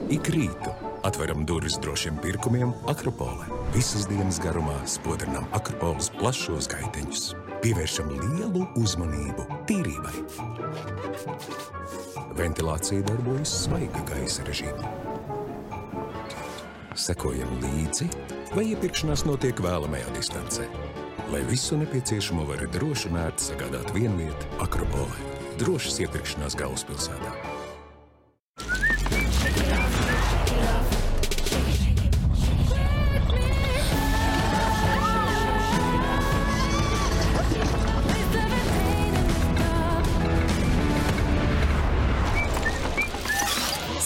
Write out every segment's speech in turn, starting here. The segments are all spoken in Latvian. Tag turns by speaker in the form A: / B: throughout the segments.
A: Ik rītu atveram durvis drošiem pirkumiem Akropole. Visas dienas garumā spodrinām Akropoles plašos gaiteņus. Pievēršam lielu uzmanību tīrībai. Ventilācija darbojas svaiga gaisa režīmā. Sekojam līdzi, vai iepirkšanās notiek vēlamajā distancē. Lai visu nepieciešamo var droši un ērti sagādāt vienvieta Akropolē. Drošas iepirkšanās galvaspilsētā.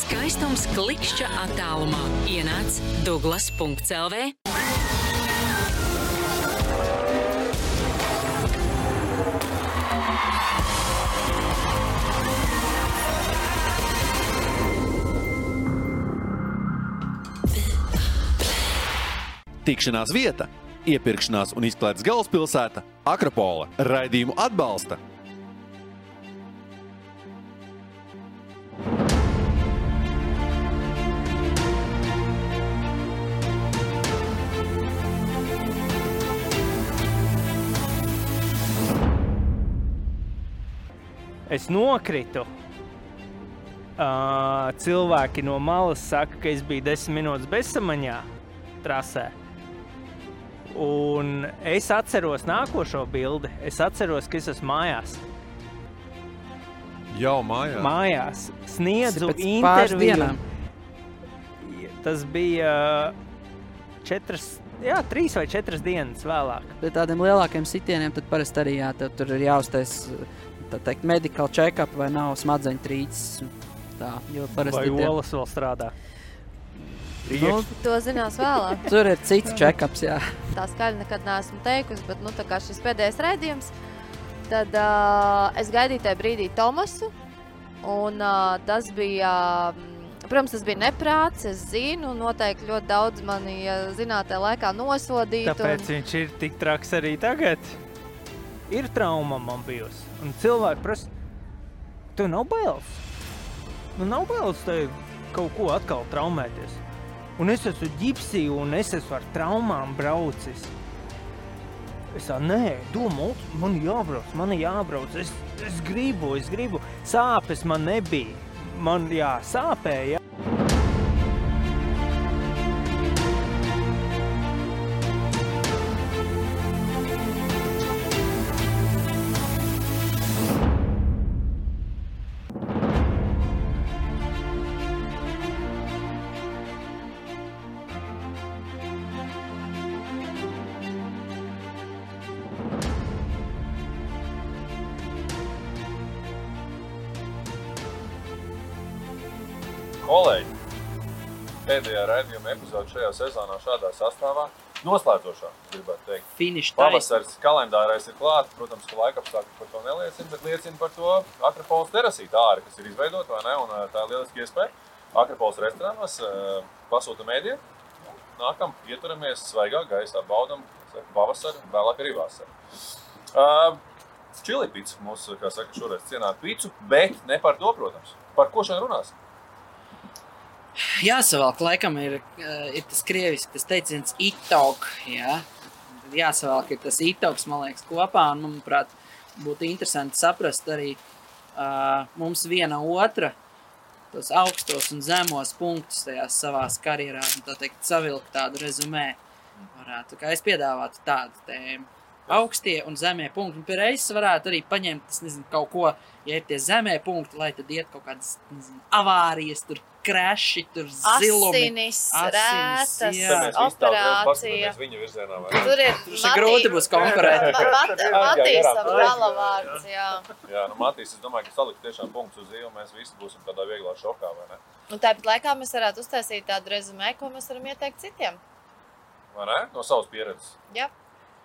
B: Skaistums klikšķa attālumā. Ienāc Douglas.lv.
C: Tikšanās vieta, iepirkšanās un izklaides galvaspilsēta Akropole. Raidījumu atbalsta
D: Es nokritu. Cilvēki no malas saka, ka es biju 10 minūtes bezsamaņā trasē. Un es atceros nākošo bildi. Es atceros, ka es esmu mājās.
C: Jau mājās?
D: Mājās. Sniedzu
E: Pēc pāris
D: interviju.
E: dienām.
D: Tas bija 3 vai 4 dienas vēlāk.
E: Pie tādiem lielākiem sitieniem tad parasti arī tev tur ir jāuztais, tā teikt, medical check-up vai nav smadzeņu trīces. Tā, jo parasti
D: Vai olas vēl strādā?
E: Nu,
F: To zinās vēlāk.
E: tur ir cits check-ups, jā.
F: Tā skaļi nekad neesmu teikusi, bet tā kā šis pēdējais raidījums, tad es gaidīju tajā brīdī Tomasu, un tas bija, protams, tas bija neprāts, es zinu, noteikti ļoti daudz mani zinātajā laikā nosodītu.
D: Tāpēc viņš ir tik traks arī tagad. Ir trauma man bijusi. Un cilvēki prasa, tev nav bailes? Nu nav bailes tev kaut ko atkal traumēties. Un es esmu ģipsī un es esmu ar traumām braucis. Es tā, nē, domā, man jābrauc. Es gribu. Sāpes man nebija. Man, sāpēja.
G: Kolēģi, pēdējā raidījuma epizode šajā sezonā šādā sastāvā noslēdzošā, gribētu teikt.
E: Finish
G: Pavasaris kalendārais ir klāt, protams, ka laikapstākļi par to neliecina, bet liecina par to Akropoles terasīta āri, kas ir izveidota, vai ne, un tā ir lieliski iespēja. Akropoles restorānos pasūtam ēdienu, nākam, ieturamies svaigā gaisā, baudam pavasaru, vēlāk arī vasaru. Čili picu, mūsu, kā saka, šoreiz cienāt picu, bet ne par to, protams. Par ko šodien runās?
E: Jāsavalk, laikam ir tas krieviski, tas teiciens itog, jā. Jāsavalk ir tas itogs, man liekas, kopā, un, manuprāt, būtu interesanti saprast arī mums viena otra tos augstos un zemos punktus tajās savās karjerās, un tā teikt, savilkt tādu rezumē varētu. Kā es piedāvātu tādu tēmu. Augstie un zemie punkti. Un pie reizes varētu arī paņemt, es nezinu, kaut ko, ja ir tie zemie punkti, lai tad iet kaut kādas, nezinu, avārijas, tur kreši, tur zilumi.
F: Asinis, rētas, operācija.
G: Viņu virzienā, vai?
F: Tur ir
E: grūti būs konkurēt.
F: Matīsam galavārds, jā.
G: Jā, Matīs, es domāju, ka salikt tiešām punktus uz zīvu, mēs visi būsim tādā vieglā šokā, vai ne?
F: Un tāpat laikā mēs varētu uztaisīt tādu rezumē, ko mēs varam ieteikt citiem.
G: Vai ne? No savas pieredzes.
F: Jā.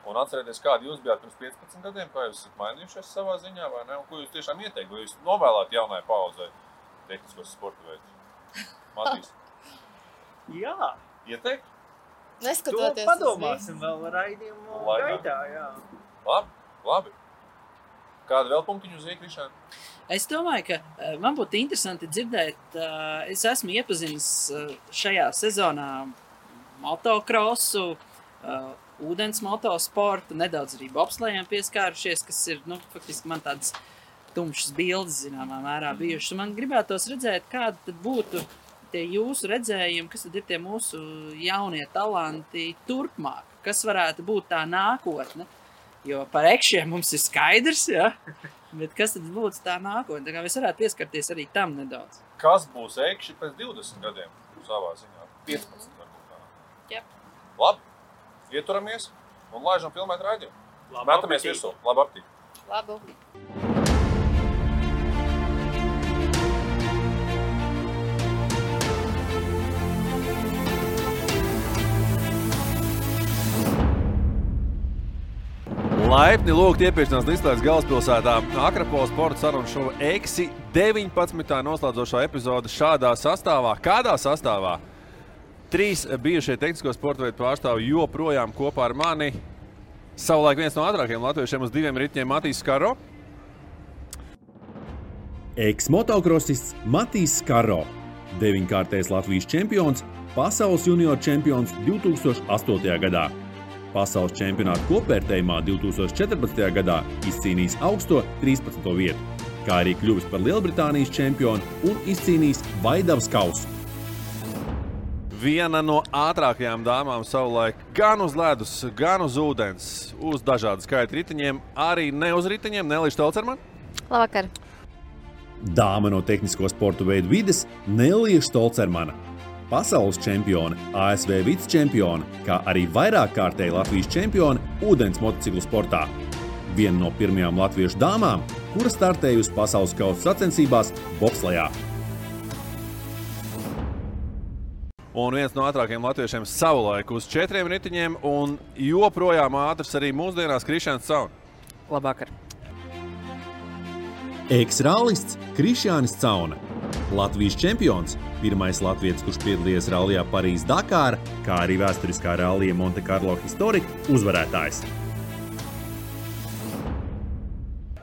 G: Un atcerieties, kādi jūs bijāt pirms 15 gadiem, kā jūs esat mainījušies savā ziņā, vai ne? Un ko jūs tiešām ieteikt, vai jūs novēlāt jaunai paudzei tehniskos sporta veidus? Matīs?
D: Jā.
G: Ieteikt?
F: Neskatoties
D: to padomāsim vēl raidījumu gaitā, jā.
G: Labi. Kāda vēl punktiņu uz iekrišana?
E: Es domāju, ka man būtu interesanti dzirdēt, es esmu iepazinis šajā sezonā motokrosu, ūdens motosportu, nedaudz arī bobslējiem pieskārušies, kas ir, faktiski man tādas tumšas bildes, zināmā mērā bijušas. Man gribētos redzēt, kāda tad būtu tie jūsu redzējumi, kas tad ir tie mūsu jaunie talanti turpmāk, kas varētu būt tā nākotne, jo par ekšiem mums ir skaidrs, ja? Bet kas tad būtu tā nākotne, tā kā mēs varētu pieskarties arī tam nedaudz.
G: Kas būs ekši pēc 20 gadiem savā ziņā? 15 varbūt tā.
E: Jā.
G: Labi, ieturamies un laižam filmēt raidījumu. Mētamies virsū. Labu aptīk.
F: Labu.
C: Laipni lūgt iepirkšanās Līslēdz galvaspilsētā Akrapola sporta sarunu šova Eksi 19. noslēdzošā epizode šādā sastāvā. Kādā sastāvā? 3 bijušie tehnisko sporta veidu pārstāvi joprojām kopā ar mani. Savulaik viens no ātrākajiem latviešiem uz 2 ritņiem Matīs Skaro.
H: Eks-motokrosists Matīs Skaro, 9-kārtais Latvijas čempions, pasaules junior čempions 2008. gadā. Pasaules čempionāta kopvērtējumā 2014. gadā izcīnījis augsto 13. vietu, kā arī kļuvis par Lielbritānijas čempionu un izcīnījis Vaidavas kausu.
C: Viena no ātrākajām dāmām savulaik gan uz ledus, gan uz ūdens, uz dažādu skaitu ritiņiem, arī ne uz ritiņiem, Nelija Štolcermane.
F: Labvakar.
H: Dāma no tehnisko sportu veidu vides Nelija Štolcermane. Pasaules čempione, ASV vicečempione, kā arī vairākkārtēji Latvijas čempione ūdens motociklu sportā. Viena no pirmajām latviešu dāmām, kura startējusi pasaules kausa sacensībās bobslejā.
C: Un viens no ātrākajiem latviešiem savulaik uz 4 ritiņiem un joprojām ātrs arī mūsdienās Krišjāns Cauna.
E: Labvakar.
H: Eks-rallists Krišjānis Cauna. Latvijas čempions, pirmais latvietis, kurš piedalījies rallijā Parīz-Dakāra, kā arī vēsturiskā rallija Monte Carlo Historic uzvarētājs.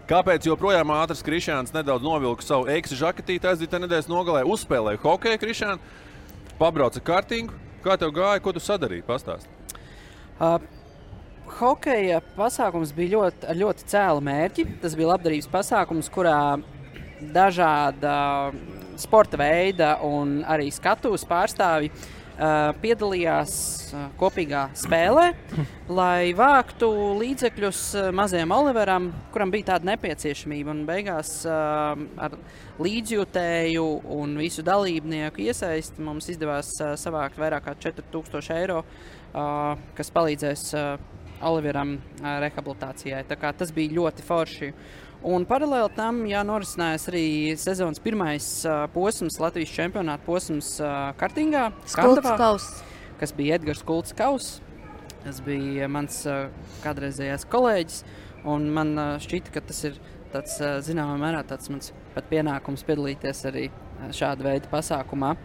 C: Kāpēc joprojām ātrs Krišjāns nedaudz novilka savu Eksi žaketīti aizdītā nedēļas nogalē, uzspēlēja hokeju Krišjānu, pabrauca kartingu. Kā tev gāja, ko tu sadarīji? Pastāst.
E: Hokeja pasākums bija ar ļoti cēlu mērķi. Tas bija labdarības pasākums, kurā dažāda sporta veida un arī skatuves pārstāvji piedalījās kopīgā spēlē, lai vāktu līdzekļus mazajam Oliveram, kuram bija tāda nepieciešamība. Un beigās ar līdzjūtēju un visu dalībnieku iesaisti mums izdevās savākt vairāk kā 4000 eiro, kas palīdzēs Oliveram rehabilitācijai. Tā kā tas bija ļoti forši. Un paralēli tam norisinājās arī sezonas pirmais posms, Latvijas čempionāta posms kartingā, Skandavā, kas bija Edgars Kults Kauss. Tas bija mans kādreizējais kolēģis, un man šķita, ka tas ir tāds, zināmā mērā, tāds mans pat pienākums piedalīties arī šāda veida pasākumā.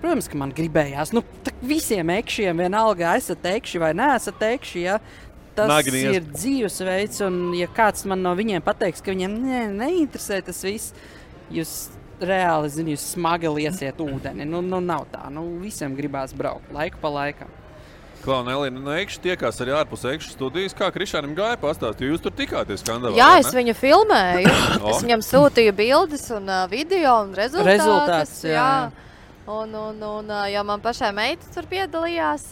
E: Protams, ka man gribējās, visiem ekšiem vienalga, esat ekši vai neesat ekši, ja. Tas ir dzīvesveids, un ja kāds man no viņiem pateiks, ka viņiem neinteresē tas viss, jūs reāli, jūs smagi liesiet ūdeni. Nav tā. Visiem gribās braukt laiku pa laikam.
C: Klau, Nelija, ekši tiekās arī ārpus ekšu studijas. Kā Krišjānim gāja pastāst? Jūs tur tikāties Skandavā?
F: Jā, es viņu filmēju. Es viņam sūtīju bildes un video un rezultātus. Jā. Un jau man pašai meitas tur piedalījās,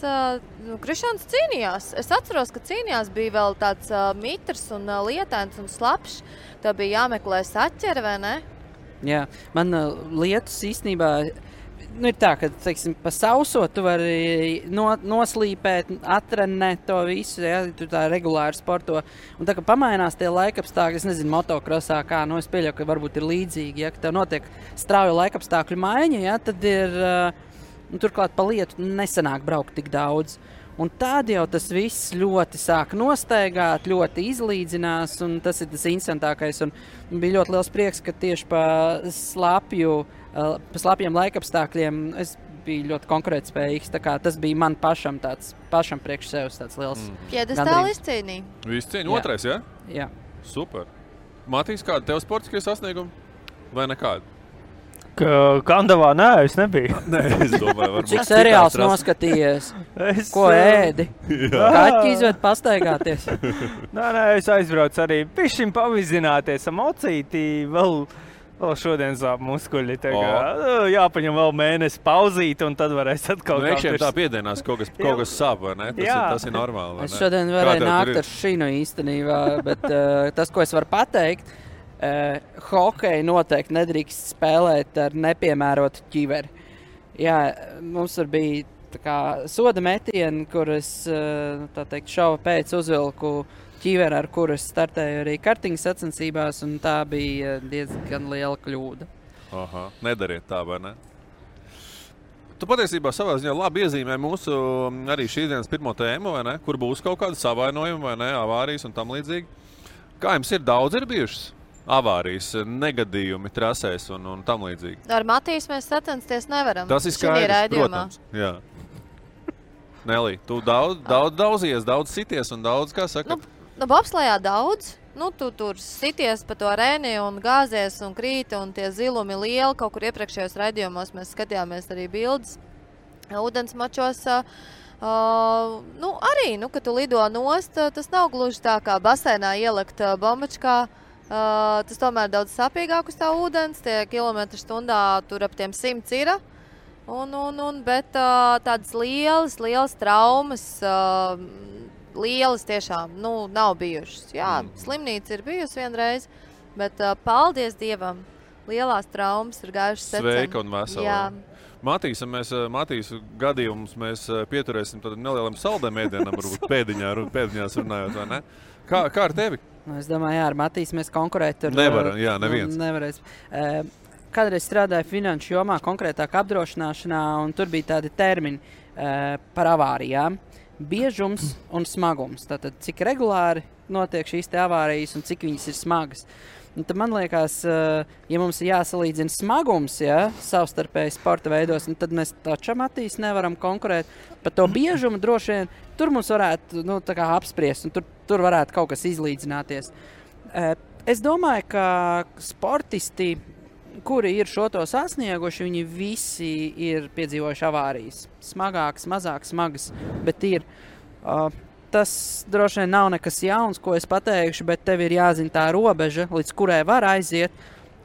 F: Krišjāns cīnījās. Es atceros, ka cīnījās bija vēl tāds mitrs un lietains un slapšs. Tā bija jāmeklē saķere, vai ne?
E: Jā, man lietus īstenībā ir tā, ka, teiksim, pa sauso tu vari noslīpēt, atrenēt to visu, ja, tu tā regulāri sporto. Un tā, ka pamainās tie laikapstākļi, es nezinu, motokrosā kā, es pieļauju, ka varbūt ir līdzīgi, ja, ka tev notiek strauja laikapstākļu maiņa, ja, tad ir, turklāt pa lietu nesanāk braukt tik daudz. Un tad jau tas viss ļoti sāk nostaigāt, ļoti izlīdzinās, un tas ir tas interesantākais. Un bija ļoti liels prieks, ka tieši pa slapjiem laikapstākļiem es biju ļoti konkurētspējīgs. Tā kā tas bija man pašam priekš sevis tāds liels
F: Piedestāli izcīnīja.
C: Izcīnīja otrais, ja?
E: Jā.
C: Super. Matīs, kāda tev sportiskie sasniegumi? vai nekādu?
D: Kandavā nē, es nebiju.
C: Nē, es domāju, varbūt.
E: Cik seriāls noskatījies? Ko ēdi? Kaķi izved pastaigāties?
D: Nē, es aizbraucu arī pišķiņ pavizināties ar mocīti, vēl šodien sāp muskuļi. Jāpaņem vēl mēnesi pauzīt, un tad varēs atkal
C: Iekšiem tā piedienās kaut kas sāp, vai ne? Tas ir normāli, vai ne?
E: Es šodien varēju nākt ar šinu īstenībā, bet tas, ko es varu pateikt, hokeju noteikti nedrīkst spēlēt ar nepiemērotu ķiveri. Jā, mums bija tā kā soda metieni, kur es šova pēc uzvilku ķiveri, ar kuru es startēju arī kartiņu sacensībās, un tā bija diezgan liela kļūda.
C: Aha, nedariet tā, vai ne? Tu patiesībā savā ziņā labi iezīmē mūsu arī šīs dienas pirmo tēmu, vai ne? Kur būs kaut kāda savainojuma, vai ne? Avārijas un tam līdzīgi. Kā jums ir daudz bijušas? Avārijas, negadījumi trasēs un tam līdzīgi.
F: Ar Matīs mēs sacensties nevaram.
C: Tas ir skaidrs, protams. Jā. Nelī, tu daudzies, daudz sities un daudz, kā saka?
F: Bobslejā daudz. Tu tur sities pa to reni un gāzies un krīti un tie zilumi lieli. Kaut kur iepriekšējos raidījumos mēs skatījāmies arī bildes. Ūdens mačos arī, kad tu lido nost, tas nav gluži tā kā basēnā ielikt bombačkā. Tas tomēr daudz sāpīgāk uz tā ūdens, tie kilometri stundā tur ap tiem 100 ir. Bet tādas lielas traumas, lielas tiešām, nav bijušas. Jā, slimnīca ir bijusi vienreiz, bet paldies Dievam, lielās traumas ir gājušas secen.
C: Sveika un vesela. Jā. Matīs gadījumus mēs pieturēsim tādam nelielam saldēm ēdienam, varbūt pēdiņās runājot, vai ne? Kā ar tevi?
E: Es domāju, ar Matīs mēs konkurēt ar...
C: Neviens.
E: Nevarēs. Kādreiz strādāju finanšu jomā, konkrētāk apdrošināšanā, un tur bija tādi termini par avārijām. Biežums un smagums. Tātad, cik regulāri notiek šīs te avārijas un cik viņas ir smagas. Un tad man liekas, ja mums ir jāsalīdzina smagums, savstarpēji sporta veidos, tad mēs taču Matīs nevaram konkurēt. Par to biežumu droši vien tur mums varētu apspriest, un tur varētu kaut kas izlīdzināties. Es domāju, ka sportisti, kuri ir šo to sasnieguši, viņi visi ir piedzīvojuši avārijas. Smagākas, mazāk smagas, bet ir... Tas droši vien nav nekas jauns, ko es pateikšu, bet tev ir jāzina tā robeža, līdz kurai var aiziet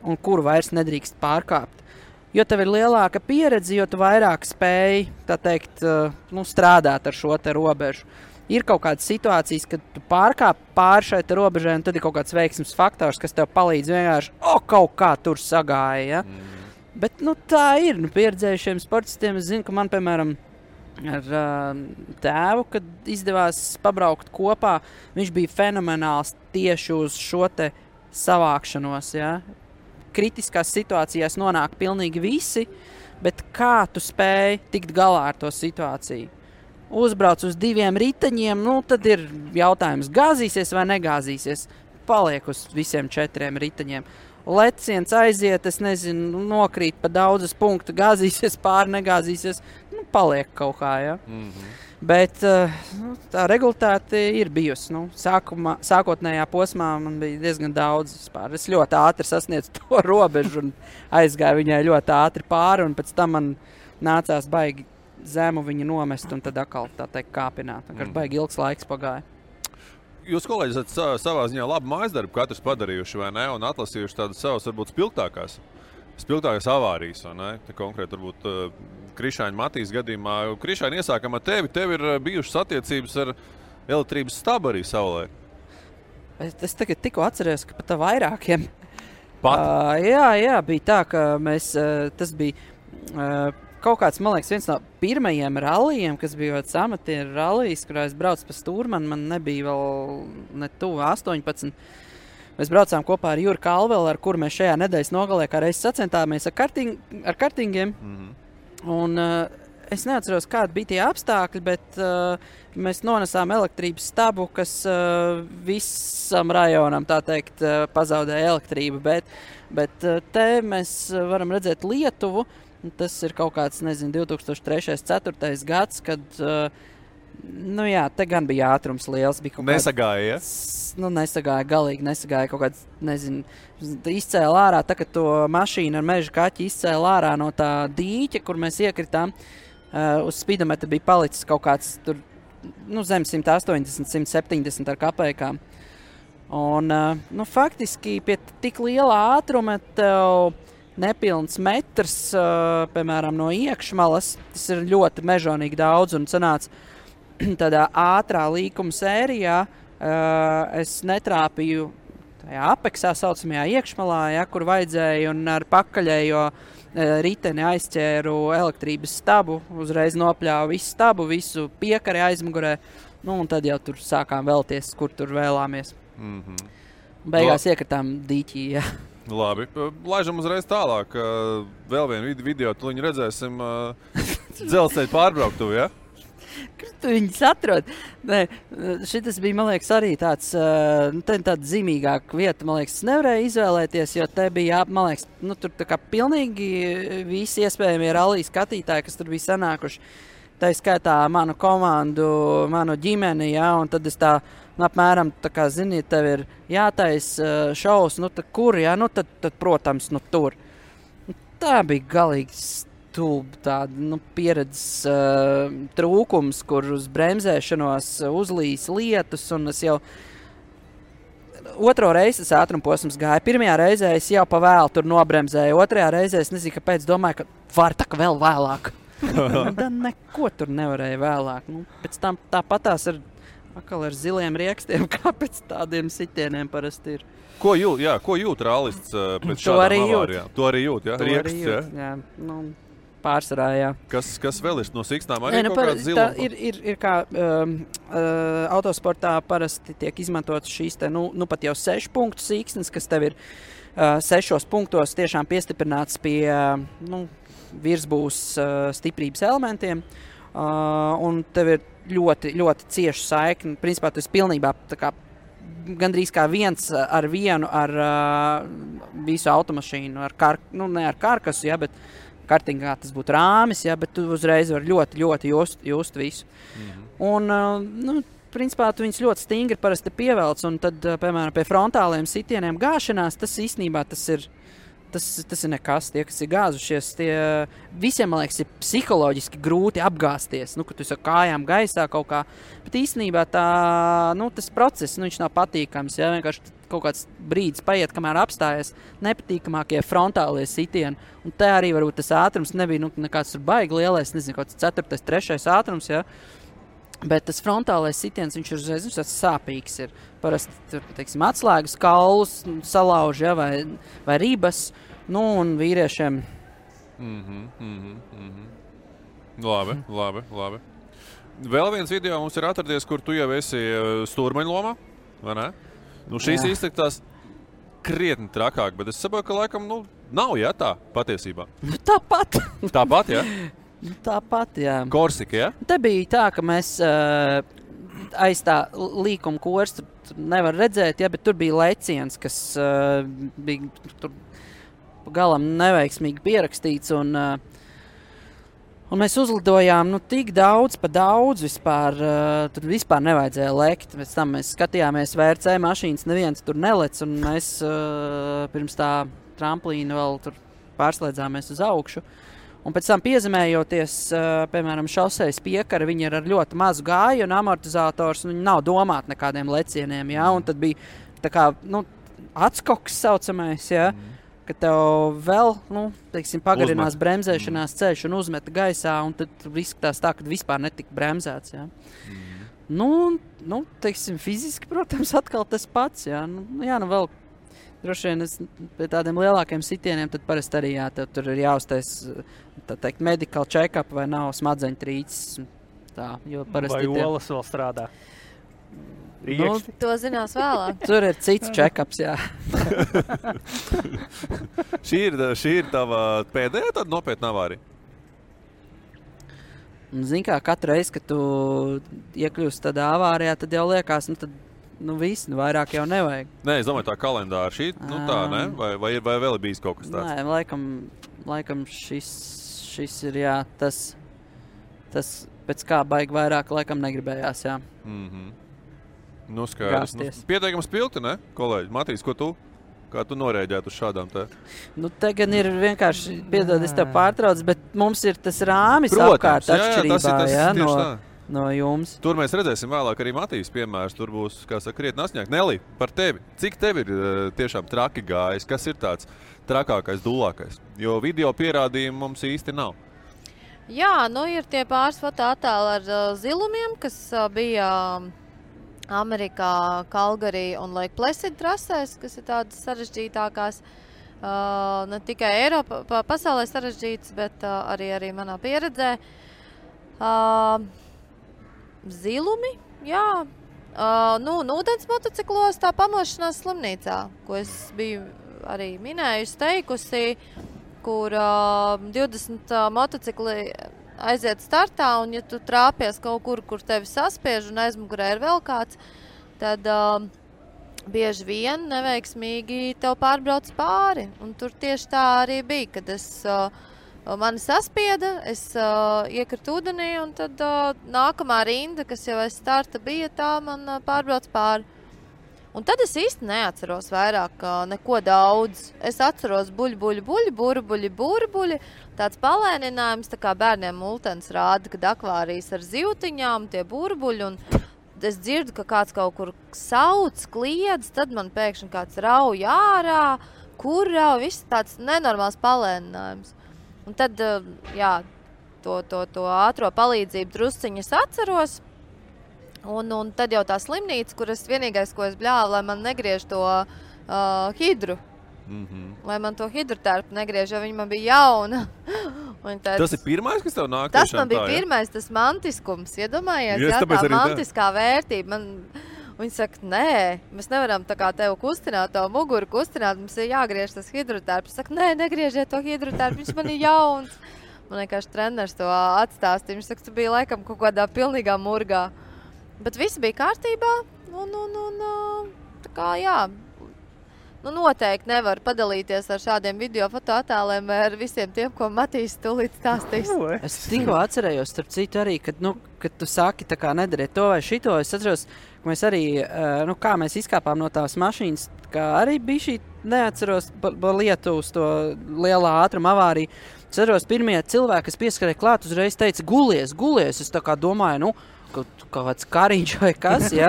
E: un kuru vairs nedrīkst pārkāpt. Jo tev ir lielāka pieredze, jo tu vairāk spēj, strādāt ar šo te robežu. Ir kaut kādas situācijas, kad tu pārkāp pāri šai te robežai, un tad ir kaut kāds veiksmes faktors, kas tev palīdz vienkārši, kaut kā tur sagāja, ja? Bet, tā ir, pieredzējušiem sportistiem, es zinu, ka man, piemēram, ar tēvu, kad izdevās pabraukt kopā, viņš bija fenomenāls tieši uz šo te savākšanos, ja? Kritiskās situācijās nonāk pilnīgi visi, bet kā tu spēj tikt galā ar to situāciju? Uzbrauc uz 2 riteņiem, tad ir jautājums, gāzīsies vai negāzīsies? Paliek uz visiem 4 riteņiem. Leciens aiziet, es nezinu, nokrīt pa daudzas punktu, gāzīsies pāri, negāzīsies, paliek kaut kā, ja? Bet tā regulātāte ir bijusi. Sākotnējā posmā man bija diezgan daudz vispār. Es ļoti ātri sasniedzu to robežu un aizgāju viņai ļoti ātri pāri, un pēc tam man nācās baigi zemu viņu nomest un tad atkal, kāpināt. Baigi ilgs laiks pagāja.
C: Jūs, kolēģi, esat savā ziņā labu mājasdarbu katrs padarījuši, vai ne? Un atlasījuši tādas savas, varbūt, spilgtākās avārijas, vai ne? Te konkrēti, varbūt, Krišāņa Matīs gadījumā. Krišāņa, iesākam ar tevi. Tev ir bijušas attiecības ar elektrības stabu arī savulaik.
E: Es tagad tikko atceros, ka pat vairākiem.
C: Jā,
E: bija tā, ka mēs, tas bija kaut kāds, man liekas, viens no pirmajiem rallijiem, kas bija amatieru rallijs, kurā es braucu pa Stūrmanu, man nebija vēl ne tuvu 18. Mēs braucām kopā ar Juru Kalvelu, ar kuru mēs šajā nedēļas nogalē kā reiz sacentāmies ar kartingiem. Un es neatceros, kādi bija tie apstākļi, bet mēs nonesām elektrības stabu, kas visam rajonam, tā teikt, pazaudēja elektrību. Bet te mēs varam redzēt Lietuvu. Tas ir kaut kāds, 2003. 2004. gads, kad Nu jā, te gan bija ātrums liels. Bija
C: Nesagāja, ja?
E: Nesagāja, galīgi nesagāja. Kaut kāds, nezinu, izcēla ārā, tā, kad to mašīnu ar meža kaķi izcēla ārā no tā dīķa, kur mēs iekritām. Uz spidometra bija palicis kaut kāds tur, zem 180, 170 ar kapējkām. Un, faktiski pie tik liela ātruma tev nepilns metrs, piemēram, no iekšmalas, tas ir ļoti mežonīgi daudz un sanāca tādā ātrā līkuma sērijā, es netrāpīju tajā apeksā saucamajā iekšmalā, ja, kur vajadzēja, un ar pakaļējo riteni aizķēru elektrības stabu, uzreiz nopļāvu visu stabu, visu piekari aizmugurē, un tad jau tur sākām vēlties, kur tur vēlāmies. Beigās iekritām dīķī, jā.
C: Labi, laižam uzreiz tālāk. Vēl vienu video, tu viņu redzēsim dzelzceļa pārbrauktuvi, ja?
E: Kur tu viņus atrod? Nē, šitas bija, man liekas, arī tāda zīmīgāka vieta, man liekas, nevarēja izvēlēties, jo te bija, man liekas, tur tā kā pilnīgi visi iespējamie rallija skatītāji, kas tur bija sanākuši. Tā skaitā manu komandu, manu ģimeni, ja, un tad es tā, apmēram, tā kā, zini, tev ir jātais šovs, tad kur, ja, tad protams, tur. Tā bija galīgi tāda pieredzes trūkums, kur uz bremzēšanos uzlīs lietus, un es jau otro reizi tas ātrumposms gāja. Pirmajā reizē es jau pa vēlu tur nobremzēju, otrajā reizē es nezinu, kāpēc domāju, ka var tā kā vēl vēlāk. Tad neko tur nevarēja vēlāk. Pēc tam tāpatās ar ziliem riekstiem, kā pēc tādiem sitieniem parasti ir.
C: Ko jūt rallists pēc šādām avārijām? To arī jūt, ja? Rieksts,
E: jā. Pārsvarā, jā.
C: Kas vēl ir no siksnām? Arī kaut kāds zilums?
E: Ir kā autosportā parasti tiek izmantotas šīs pat jau 6 punktu siksnes, kas tev ir 6 punktos tiešām piestiprināts pie virsbūs stiprības elementiem. Un tev ir ļoti, ļoti cieša saikne. Principā tu esi pilnībā tā kā gandrīz kā 1:1 ar visu automašīnu, ne ar karkasu, ja, bet kartingā tas būtu rāmis, ja, bet tu uzreiz var ļoti, ļoti just visu. Un, principā, tu viņus ļoti stingri parasti pievelc, un tad, piemēram, pie frontāliem sitieniem gāšanās, tas īstenībā tas ir nekas. Tie, kas ir gāzušies, visiem, man liekas, ir psiholoģiski grūti apgāsties, ka tu esi ar kājām gaisā kaut kā. Bet īstenībā tas process, viņš nav patīkams, ja, vienkārši kaut kāds brīdis paiet, kamēr apstājies nepatīkamākie frontālie sitieni. Un te arī varbūt tas ātrums nebija nekāds tur baigi lielais, nezinu, kaut kāds 4., 3. ātrums, ja. Bet tas frontālais sitiens, viņš ir uzreiz sāpīgs. Ir parasti, teiksim, atslēgas kaulus salauž, ja, vai ribas, un vīriešiem.
C: Labi. Vēl viens video mums ir atradies, kur tu jau esi stūrmeņa lomā, vai ne? Šīs iztektās krietni trakāk, bet es saprotu, ka laikam, nav, ja, tā patiesībā.
E: Tāpat.
C: Tāpat, ja?
E: Tāpat, jā.
C: Korsika, ja?
E: Te bija tā, ka mēs aiz tā līkuma kors tur nevar redzēt, ja, bet tur bija leciens, kas bija tur galam neveiksmīgi pierakstīts, un mēs uzlidojām tik daudz pa daudz vispār, tur vispār nevajadzēja lekt. Pēc tam mēs skatījāmies VRC mašīnas, neviens tur nelec, un mēs pirms tā tramplīna vēl tur pārslēdzāmies uz augšu. Un pēc tam piezemējoties, piemēram, šosejas piekara, viņi ir ar ļoti mazu gāju un amortizators, un viņi nav domāti nekādiem lecieniem, ja, un tad bija tā kā, atskoks saucamais, ja, ka tev vēl, teiksim, pagarinās bremzēšanās ceļš un uzmeta gaisā, un tad izskatās tā, ka vispār netika bremzēts, ja. Teiksim, fiziski, protams, atkal tas pats, ja, vēl droši vien pie tādiem lielākiem sitieniem, tad parasti arī, jā, tev tur ir jāuztais, tā teikt, medical check-up vai nav smadzeņu trīcis, tā, jo parasti
D: vai olas vēl strādā.
F: To zinās vēlāk.
E: Tur ir cits check-ups, jā.
C: Šī ir tava pēdējā tāda nopietna avārija?
E: Zini kā, katru reizi, kad tu iekļūst tādā avārijā, tad jau liekas, viss, vairāk jau nevajag.
C: Nē, es domāju, tā kalendāra šī, tā, ne? Vai vēl ir bijis kaut kas tāds?
E: Nē, laikam šis ir, jā, tas tas pēc kā baigi vairāk laikam negribējās, jā.
C: Nu, skaidrs. Nu, pieteikams pilti, ne, kolēģi? Matīs, ko tu? Kā tu norēģētu uz šādām te?
E: Nu, te gan ir vienkārši, piedod, es tev pārtrauc, bet mums ir tas rāmis apkārt atšķirībā, no jums.
C: Tur mēs redzēsim vēlāk arī Matīs piemērs. Tur būs, kā saka, krietni asņāk. Nelī, par tevi. Cik tev ir tiešām traki gājis? Kas ir tāds trakākais, dulākais? Jo video pierādījumi mums īsti nav.
F: Jā, nu ir tie pāris fotoattēli ar zilumiem, kas bija Amerikā, Calgary un Lake Placid trasēs, kas ir tādas sarežģītākās. Ne tikai Eiropā, pasaulē sarežģītas, bet arī manā pieredzē. Zilumi, jā. Nu, ūdens motociklos tā pamošanās slimnīcā, ko es biju arī minējusi, teikusi, kur 20 motocikli aiziet startā, un ja tu trāpies kaut kur tevi saspiež un aizmugurē ir vēl kāds, tad bieži vien neveiksmīgi tev pārbrauc pāri. Un tur tieši tā arī bija, kad mani saspieda, es iekritu ūdenī, un tad nākamā rinda, kas jau aiz starta bija, tā man pārbrauc pāri. Un tad es īsti neatceros vairāk neko daudz. Es atceros burbuļi, tāds palēninājums, tā kā bērniem multens rāda, kad akvārijas ar zivtiņām, tie burbuļi, un es dzirdu, ka kāds kaut kur sauc, kliedz, tad man pēkšņi kāds rauj ārā, kur rauj, viss tāds nenormāls palēninājums. Un tad, jā, to ātro palīdzību drusciņas atceros, un tad jau tā slimnīca, kur es vienīgais, ko es bļāvu, lai man negriež to hidru. Lai man to hidrotērpu negriež, jo viņa man bija jauna.
C: Tas ir pirmais, kas tev nāk?
F: Tas man bija pirmais, tas mantiskums. Iedomājies, jā, tā mantiskā vērtība. Viņi saka, nē, mēs nevaram tā kā tev kustināt, to muguru kustināt, mums ir jāgriež tas hidrotērps. Saka, nē, negriežiet to hidrotērpu, viņš man ir jauns. Man vienkārši treneris to atstāstīja. Viņš saka, tu biji laikam kaut kādā pilnīgā murgā. Bet viss bija kārtībā, un tā kā, jā, nu noteikti nevar padalīties ar šādiem video fotoattēliem vai ar visiem tiem, ko Matīs tūlīt stāstīs.
E: Es tikko atcerējos, starp citu arī, kad tu saki, tā kā nedariet to vai šito, es atceros, ka mēs arī, kā mēs izkāpām no tās mašīnas, kā arī bija šī, neatceros, lietu uz to lielā ātruma avāriju. Es atceros, pirmie cilvēki, kas pieskarēja klāt, uzreiz teica, gulies, es tā kā domāju, kaut kāds kariņš vai kas, jā.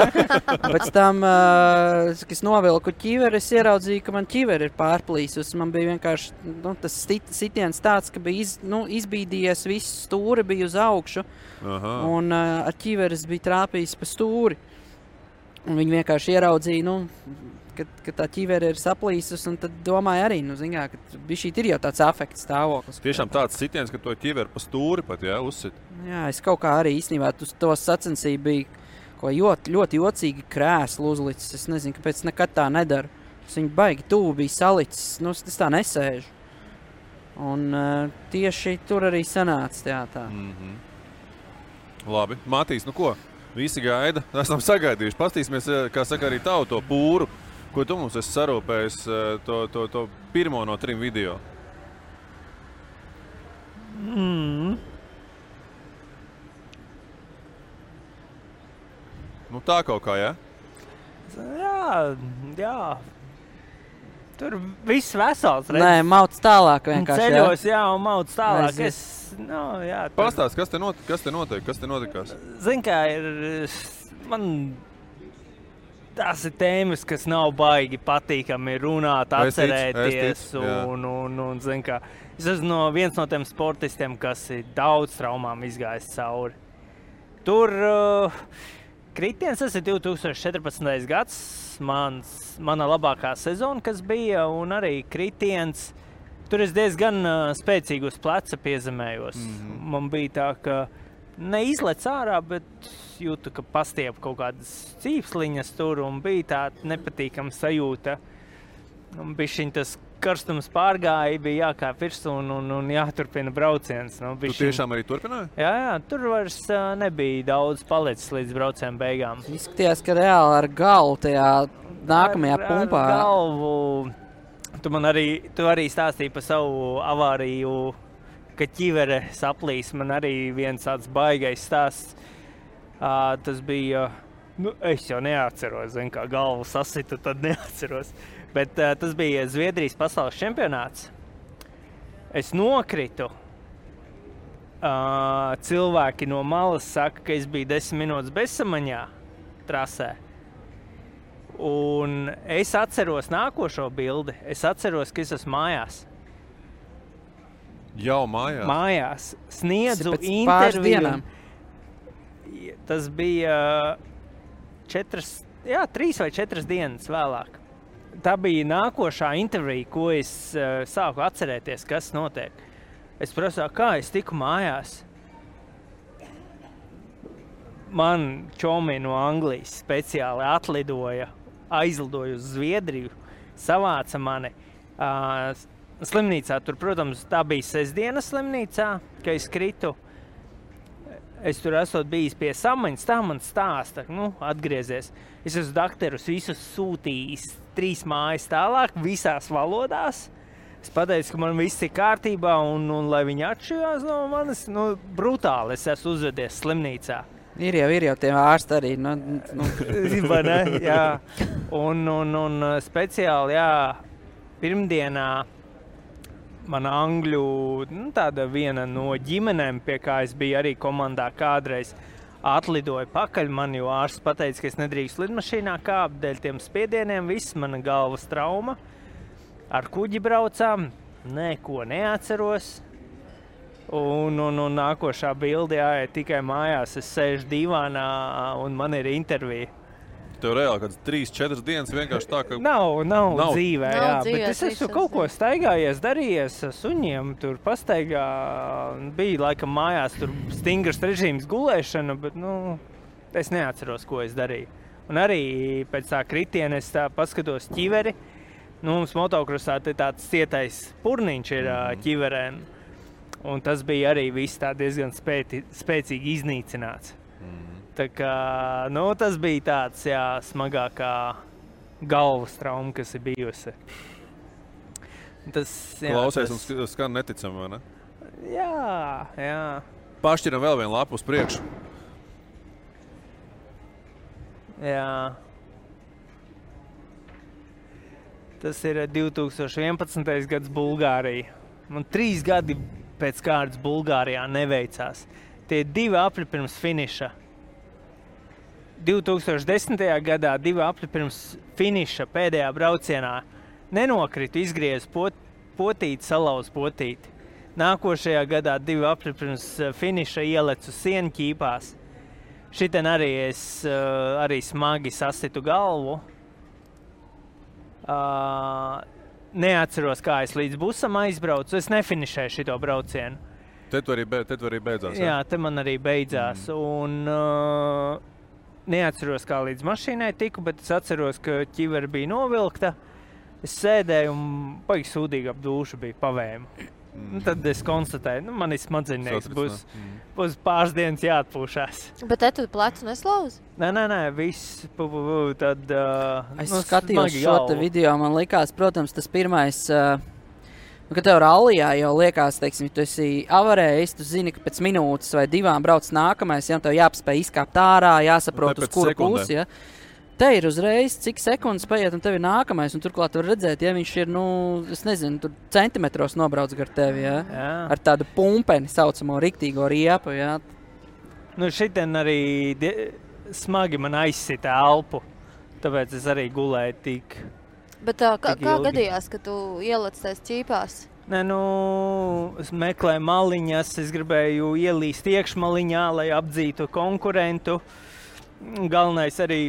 E: Pēc tam, kad es novilku ķiveri, es ieraudzīju, ka man ķiveri ir pārplīsus. Man bija vienkārši tas sitiens tāds, ka bija izbīdījies, viss stūri bija uz augšu.
C: Aha.
E: Un ar ķiveres bija trāpījis pa stūri. Un viņi vienkārši ieraudzīja, ka tā ķivere ir saplīsus, un tad domāju arī, ka bišķīt ir jau tāds afekts stāvoklis.
C: Tiešām tāds sitiens, ka to ķiveri pa stūri pat, jā, uzsit.
E: Jā, es kaut kā arī īstenībā to sacensību bija ļoti jocīgi krēslu uzlicis. Es nezinu, kāpēc nekad tā nedaru. Es viņu baigi tuvu bija salicis, es tā nesēžu. Un tieši tur arī sanāca tā.
C: Labi, Matīs, ko? Visi gaida, esam sagaidījuši. Pastīsimies, kā saka, arī tavu to pūru. Ko tu mums esi sarūpējis to pirmo no 3 video? Nu tā kaut kā, jā?
D: Jā. Tur viss vesels. Redz.
E: Nē, mauc tālāk vienkārši.
D: Ceļos, jā, un mauc tālāk.
C: Pastāst, kas te notiek? Kas te notikās?
D: Zin kā, tās ir tēmas, kas nav baigi patīkami runāt, atcerēties. Un zin kā, es esmu viens no tiem sportistiem, kas ir daudz traumām izgājis cauri. Tur kritiens, tas ir 2014. gads, mana labākā sezona, kas bija, un arī kritiens. Tur es diezgan spēcīgi uz pleca piezemējos. Man bija tā, ka neizlec ārā, bet jūtu, ka pastiep kaut kādas cīpsliņas tur, un bija tā nepatīkama sajūta. Un bišķiņ tas karstums pārgāja, bija jākāp virsū un jāturpina brauciens.
C: Tu tiešām arī turpināji?
D: Jā, tur vairs nebija daudz palicis līdz brauciena beigām.
E: Izskatījās, ka reāli ar galvu tajā nākamajā pumpā.
D: Ar galvu. Tu arī stāstīji par savu avāriju ka ķivere saplīs, man arī viens tāds baigais stāsts. Tas bija, es jau neatceros, kā galvu sasitu, tad neatceros. Bet tas bija Zviedrijas pasaules čempionāts. Es nokritu. Cilvēki no malas saka, ka es biju 10 minūtes bezsamaņā trasē. Un es atceros nākošo bildi. Es atceros, ka es esmu mājās.
C: Jau mājās?
D: Mājās. Sniedzu interviju. Tas bija 3 vai 4 dienas vēlāk. Tā bija nākošā intervija, ko es sāku atcerēties, kas notiek. Es prasīju, kā es tiku mājās. Man čomi no Anglijas speciāli aizlidoja uz Zviedriju, savāca mani slimnīcā. Tur, protams, tā bija sestdienas slimnīcā, ka es kritu. Es tur esot bijis pie samaņas, tā man stāsta, atgriezies. Es esmu dakterus visus sūtījis 3 mājas tālāk, visās valodās. Es pateicu, ka man viss ir kārtībā un lai viņi atšķirās no manis, brutāli es esmu uzvedies slimnīcā.
E: Ir jau tie ārsti arī.
D: Vai ne? Jā. Un speciāli, pirmdienā mana angļu, tāda viena no ģimenēm, pie kā es biju arī komandā kādreiz, atlidoja pakaļ man, jo ārsts pateica, ka es nedrīkst lidmašīnā kāpt dēļ tiem spiedieniem, viss mana galvas trauma. Ar kuģi braucām, neko neatceros. Un nākošā bilde, tikai mājās es sēžu divānā un man ir intervija.
C: Tev reāli kāds 3-4 dienas vienkārši tā, ka...
D: Nav dzīvē, bet es esmu kaut ko staigājies, darījies suņiem, tur pastaigā. Bija laikam mājās tur stingrs režīms gulēšana, bet, es neatceros, ko es darīju. Un arī pēc tā kritiena es tā paskatos ķiveri. Mums motokrosā tāds cietais purniņš ir ķiverēm. Un tas bija arī viss tā diezgan spēcīgi iznīcināts. Tā kā, tas bija tāds, smagākā galvas trauma, kas ir bijusi.
C: Klausies un skan neticam, vai ne?
D: Jā.
C: Pašķiram vēl vienu lapu uz priekšu.
D: Jā. Tas ir 2011. gads Bulgārija. Man 3 gadi pēc kārtas Bulgārijā neveicās. Tie 2 apļi pirms finiša. 2010. gadā 2 apļi pirms finiša pēdējā braucienā nenokritu, izgriezu potīti, salauzu potīti. Nākošajā gadā 2 apļi pirms finiša ielecu sienu ķīpās. Šitien arī es arī smagi sasitu galvu. Neatceros, kā es līdz busam aizbraucu. Es nefinišēju šito braucienu.
C: Te tu arī beidzās?
D: Jā, te man arī beidzās. Un neatceros, kā līdz mašīnai tiku, bet es atceros, ka ķivere bija novilkta. Es sēdēju un baigi sūdīgi ap dūšu bija pavēmu. Tad es konstatēju, man ir smadzennieks, būs pāris dienas jāatpūšās.
F: Bet te tu plecu neslauzi?
D: Nē, viss, tad...
E: Es skatījos šo te video, man likās, protams, tas pirmais, ka tev rallijā jau liekas, teiksim, tu esi avarējis, tu zini, ka pēc minūtes vai 2 brauc nākamais, tev jāpaspēj izkāpt ārā, jāsaprot, uz kuru pusi, Te ir uzreiz, cik sekundes paiet, un tev ir nākamais, un turklāt var redzēt, viņš ir, es nezinu, tur centimetros nobrauc gar tevi, ar tādu pumpeni saucamo riktīgo riepu,
D: Šitien arī smagi man aizsita elpu, tāpēc es arī gulēju tik
F: Bet kā gadījās, ka tu ielec tais ķīpās?
D: Es meklēju maliņas, es gribēju ielīst iekšmaliņā, lai apdzītu konkurentu. Galvenais arī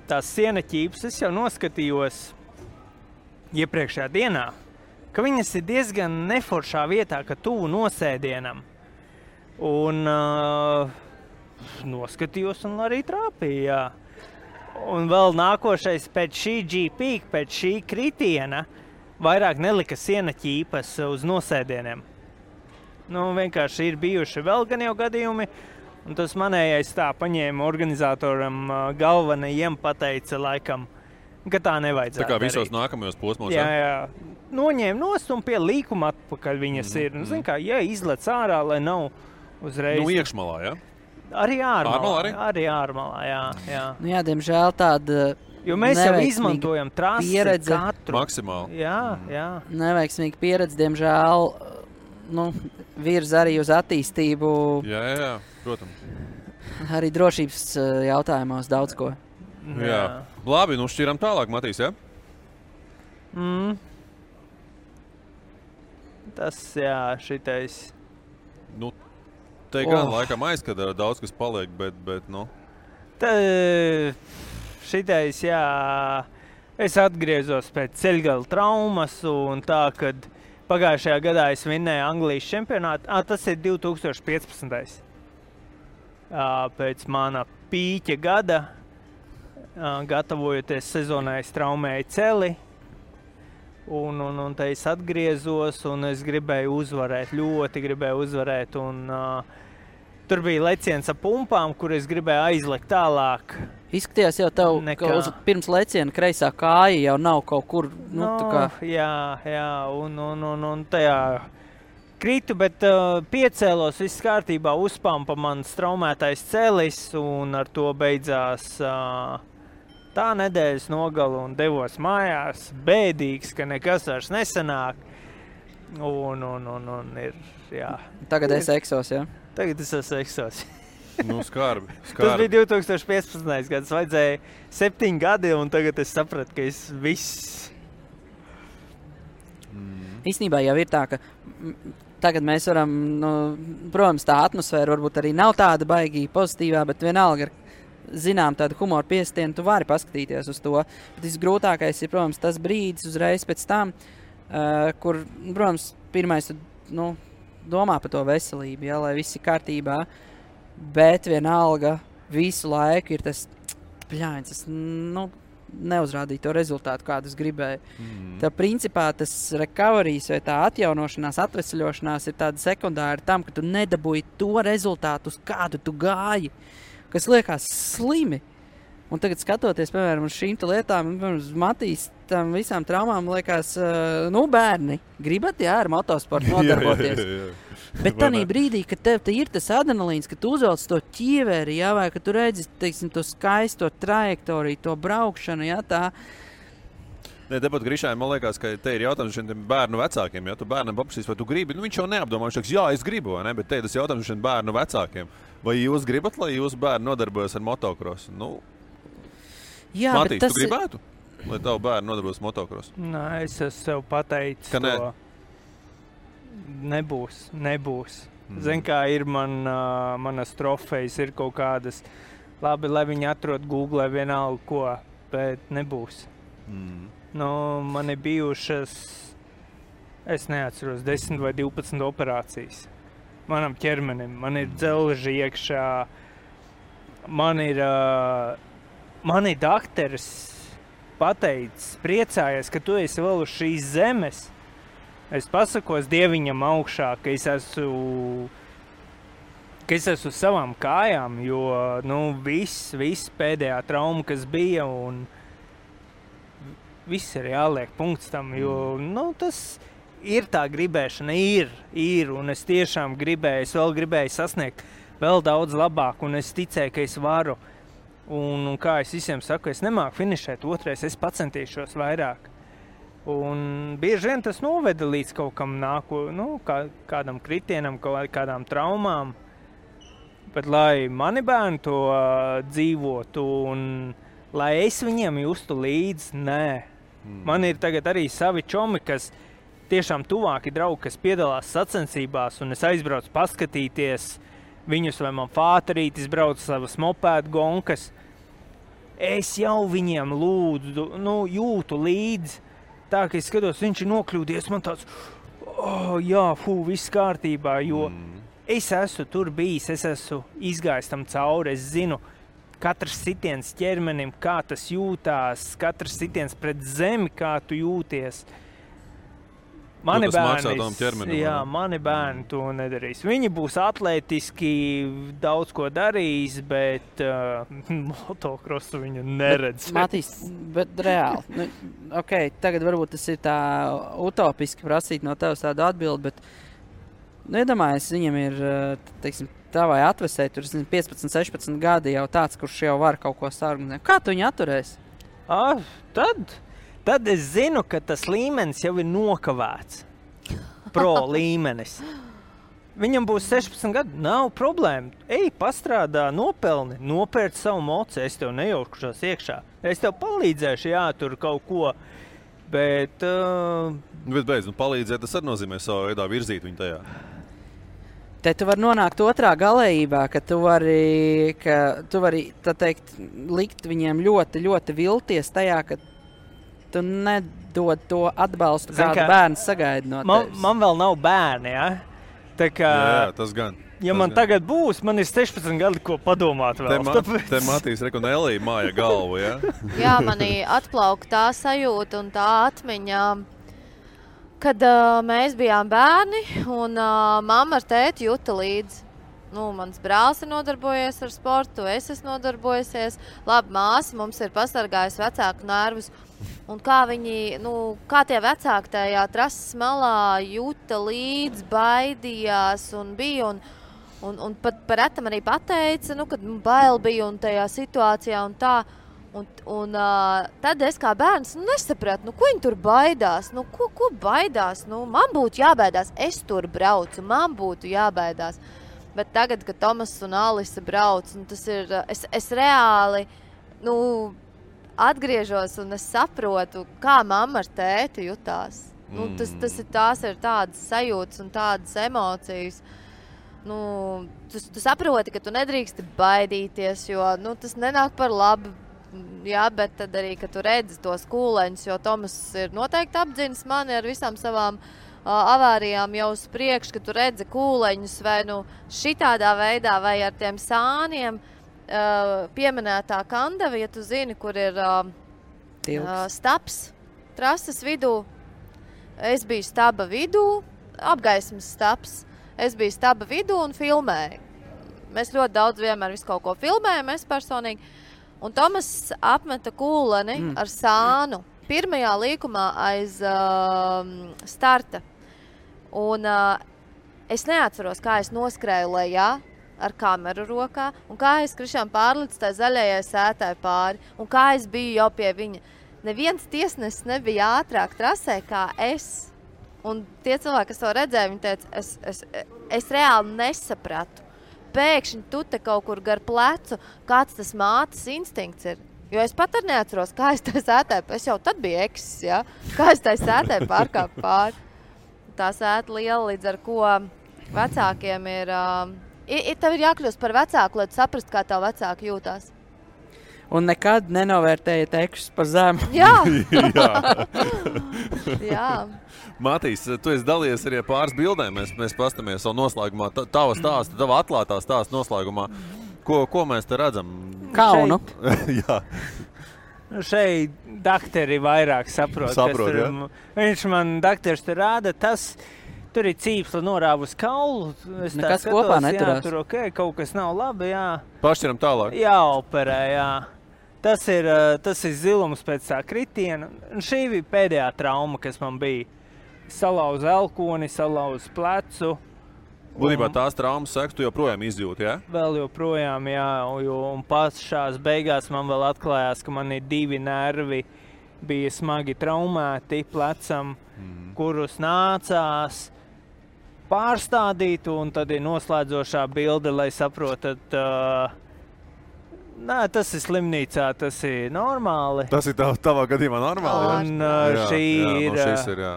D: tās siena ķīpas, es jau noskatījos iepriekšējā dienā, ka viņas ir diezgan neforšā vietā, ka tuvu nosēdienam. Un noskatījos un arī trāpīja, Un vēl nākošais pēc šī GP, pēc šī kritiena, vairāk nelika siena ķīpas uz nosēdieniem. Vienkārši ir bijuši vēl gan jau gadījumi, un tas manējais tā paņēma organizatoram galvenajiem pateica laikam, ka tā nevajadzētu
C: Tā kā visos
D: darīt.
C: nākamajos posmos.
D: Jā. noņēma nost un pie līkuma atpakaļ viņas ir. Nu, zin kā, izlec ārā, lai nav uzreiz.
C: Nu, iekšmalā, ja?
D: Arī ārmalā.
C: Arī
D: ārmalā, jā.
E: Nu, jā, diemžēl tāda
D: Jo mēs jau izmantojam trasi katru.
C: Maksimāli.
D: Jā.
E: Neveiksmīga pieredze, diemžēl, virza arī uz attīstību.
C: Jā, protams.
E: Arī drošības jautājumos daudz ko.
C: Jā. Labi, šķiram tālāk, Matīs, ja?
D: Tas, šitais.
C: Te gan laikam aizskatā daudz, kas paliek, bet.
D: Šitais, es atgriezos pēc ceļgala traumas un tā, kad pagājušajā gadā es vinnēju Anglijas čempionātu. Tas ir 2015. Pēc mana pīķa gada, gatavojoties sezonai, es traumēju celi. Un te es atgriezos un es gribēju uzvarēt, ļoti gribēju uzvarēt. Tur bija leciens ar pumpām, kur es gribēju aizlekt tālāk.
E: Izskatījās jau tev, ka pirms leciena kreisā kāja jau nav kaut kur,
D: Jā, un tajā kritu, bet piecēlos, viss kārtībā, uzpampa mans traumētais celis un ar to beidzās tā nedēļas nogala un devos mājās, bēdīgs, ka nekas vairs nesanāk. Un ir, jā.
E: Tagad esi eksos, jā?
D: Tagad es esmu eksos.
C: Skarbi.
D: Tas bija 2015. gads, vajadzēja 7 gadi, un tagad es sapratu, ka es viss.
E: Īstenībā jau ir tā, ka tagad mēs varam, protams, tā atmosfēra varbūt arī nav tāda baigī pozitīvā, bet vienalga ar zinām tādu humoru piestienu, tu vari paskatīties uz to. Bet visgrūtākais ir, protams, tas brīdis uzreiz pēc tam, kur, protams, pirmais domā par to veselību, lai viss ir kārtībā. Bet vienalga visu laiku ir tas pļāņas, neuzrādīja to rezultātu, kādu es gribēju. Tā principā tas recoveries vai tā atjaunošanās, atvesaļošanās ir tāda sekundāra tam, ka tu nedabūji to rezultātu, uz kādu tu gāji, kas liekas slimi. Un tagad skatoties, piemēram, uz šīm lietām, uz Matīs, tam visām traumām liekas, bērni, gribat, ar motosportu nodarboties. Jā. Bet tādā brīdī, kad tev ir tas adrenalīns, ka tu uzvelc to ķieveri, vai ka tu redzi, teiksim, to skaisto trajektoriju, to braukšanu, tā.
C: Tepat Grišai, man liekas, ka te ir jautājums šiem bērnu vecākiem. Ja tu bērnam paprasīs, vai tu gribi, viņš jau neapdomā, viņš teiks, jā, es gribu, vai ne? Bet te ir tas jautājums šiem bērnu vecākiem. Vai jūs gribat, lai jūsu bērni nodarbojas ar motokrosu?
E: Jā,
C: Matīs, tu gribētu, lai tavu bērnu nodarbojas motokrosu?
D: Nē, es esmu sev pateicis,
C: ka
D: to. Nebūs. Zin, kā ir manas trofejas, ir kaut kādas, labi, lai viņi atrod Google vienalga ko, bet nebūs. Man ir bijušas, es neatceros, 10 vai 12 operācijas. Manam ķermenim, man ir dzelži iekšā, man ir dakteris pateicis, priecājies, ka tu esi vēl uz šīs zemes. Es pasakos Dieviņam augšā, ka es esmu uz savām kājām, jo viss pēdējā trauma, kas bija, un viss ir jāliek punkts tam, jo tas ir tā gribēšana, ir, un es tiešām gribēju sasniegt vēl daudz labāk, un es ticēju, ka es varu. Un kā es visiem saku, es nemāku finišēt otrais, es pacentīšos vairāk. Un bieži vien tas noveda līdz kaut kam kādam kritienam, kādām traumām. Bet lai mani bērni to dzīvotu un lai es viņiem justu līdzi, nē. Man ir tagad arī savi čomi, kas tiešām tuvāki draugi, kas piedalās sacensībās, un es aizbraucu paskatīties viņus, vai man fāterītis brauc savas mopēdu gonkas. Es jau viņiem lūdzu, jūtu līdzi. Tā, ka es skatos, viņš ir nokļūdies, man tāds, viss kārtībā, jo es esmu tur bijis, es esmu izgājis tam cauri, es zinu, katrs sitiens ķermenim, kā tas jūtās, katrs sitiens pret zemi, kā tu jūties. Mani
C: tas maksā tam ķermenim,
D: jā,
C: vai ne?
D: mani bērni to nedarīs. Viņi būs atlētiski, daudz ko darīs, bet motokrosu viņu neredz.
E: Matīs, bet reāli. Nu, okay, tagad varbūt tas ir tā utopiski prasīt no tevis tādu atbildi, bet iedomājies, viņam ir, teiksim, tavai atvesē, tur 15, 16 gadi jau tāds, kurš jau var kaut ko sargunāt. Kā tu viņu atturēsi?
D: Tad es zinu, ka tas līmenis jau ir nokavēts. Pro līmenis. Viņam būs 16 gadi, nav problēma. Ej, pastrādā, nopelni, nopērc savu moci, es tev nejaukušos iekšā. Es tev palīdzēšu, jā, tur kaut ko, bet...
C: Bet beidz, palīdzēt, tas arī nozīmē savu veidā virzīt viņu tajā.
E: Te tu vari nonākt otrā galējībā, ka tu vari tā teikt, likt viņiem ļoti, ļoti vilties tajā, ka tu nedod to atbalstu, kādu bērns sagaida no tevis.
D: Man vēl nav bērni, ja? Tā kā,
C: jā, tas gan.
D: Ja man tagad būs, man ir 16 gadi, ko padomāt vēl.
C: Te Matīs Rekonelī māja galvu, ja?
F: Jā, manī atplauk tā sajūta un tā atmiņa, kad mēs bijām bērni un mamma ar tēti juta līdzi. Mans brālis ir nodarbojies ar sportu, es esmu nodarbojusies. Labi, māsa mums ir pasargājusi vecāku nervus. Un kā viņi, kā tie vecāki tajā trases malā juta līdzi, baidījās un bija. Un pat par retam arī pateica, kad bail bija un tajā situācijā un tā. Un tad es kā bērns nesapratu, ko viņi tur baidās. Ko baidās? Man būtu jābaidās, es tur braucu, man būtu jābaidās. Bet tagad, kad Tomas un Alisa brauc, tas ir, es reāli atgriežos un es saprotu, kā mamma ar tēti jutās. Tās ir tādas sajūtas un tādas emocijas. Tu saproti, ka tu nedrīksti baidīties, jo tas nenāk par labu. Jā, bet tad arī, ka tu redzi tos kūleņus, jo Tomas ir noteikti apdzinis mani ar visām savām avārijām jau uz priekšu, ka tu redzi kūleņus vai šitādā veidā vai ar tiem sāniem pieminētā Kandava, ja tu zini, kur ir staps trases vidū. Es biju staba vidū, apgaismas staps. Es biju staba vidū un filmēju. Mēs ļoti daudz vienmēr visu kaut ko filmējam, es personīgi. Un Tomas apmeta kūleni ar sānu pirmajā līkumā aiz starta. Un es neatceros, kā es noskrēju lejā ar kameru rokā, un kā es krišām pārlicu tai zaļajai sētai pāri, un kā es biju jau pie viņa. Neviens tiesnesis nebija ātrāk trasē kā es. Un tie cilvēki, kas to redzēja, viņi teica, es reāli nesapratu. Pēkšņi tu te kaut kur gar plecu, kāds tas mātes instinkts ir. Jo es pat arī neatceros, kā es tai sētai, es jau tad biju eksis, ja? Kā es tai sētai pārkāpu pāri. Tā sēta liela, līdz ar ko vecākiem ir... Tev ir jākļūst par vecāku, lai tu saprast, kā tev vecāki jūtās.
E: Un nekad nenovērtējiet ekšus par zemu.
F: Jā. Jā.
C: Matīs, tu esi dalījies arī pāris bildēm. Mēs pastamies savu noslēgumā. Tava stāsta, tava atklātā stāsta noslēgumā. Ko mēs te redzam?
E: Kaunu.
C: Jā.
D: Šeit dakteri vairāk saprot.
C: Jā.
D: Viņš man dakters tur rāda, tur ir cīpsla norāva uz kaulu.
E: Nekas kopā neturās.
D: Jā, tur kaut kas nav labi, jā.
C: Pašķiram tālāk.
D: Jāoperē, jā. Tas ir zilums pēc tā kritiena. Un šī bija pēdējā trauma, kas man bija. Salauzu elkoni, salauzu plecu.
C: Būtībā tās traumas sekas tu joprojām izjūti, jā?
D: Vēl joprojām, jā. Un pašās beigās man vēl atklājās, ka man ir 2 nervi bija smagi traumēti plecam, kurus nācās pārstādīt, un tad ir noslēdzošā bilde, lai saprotat, nē, tas ir slimnīcā, tas ir normāli.
C: Tas ir tavā gadījumā normāli,
D: un
C: jā?
D: Šī ir...
C: šis ir, jā.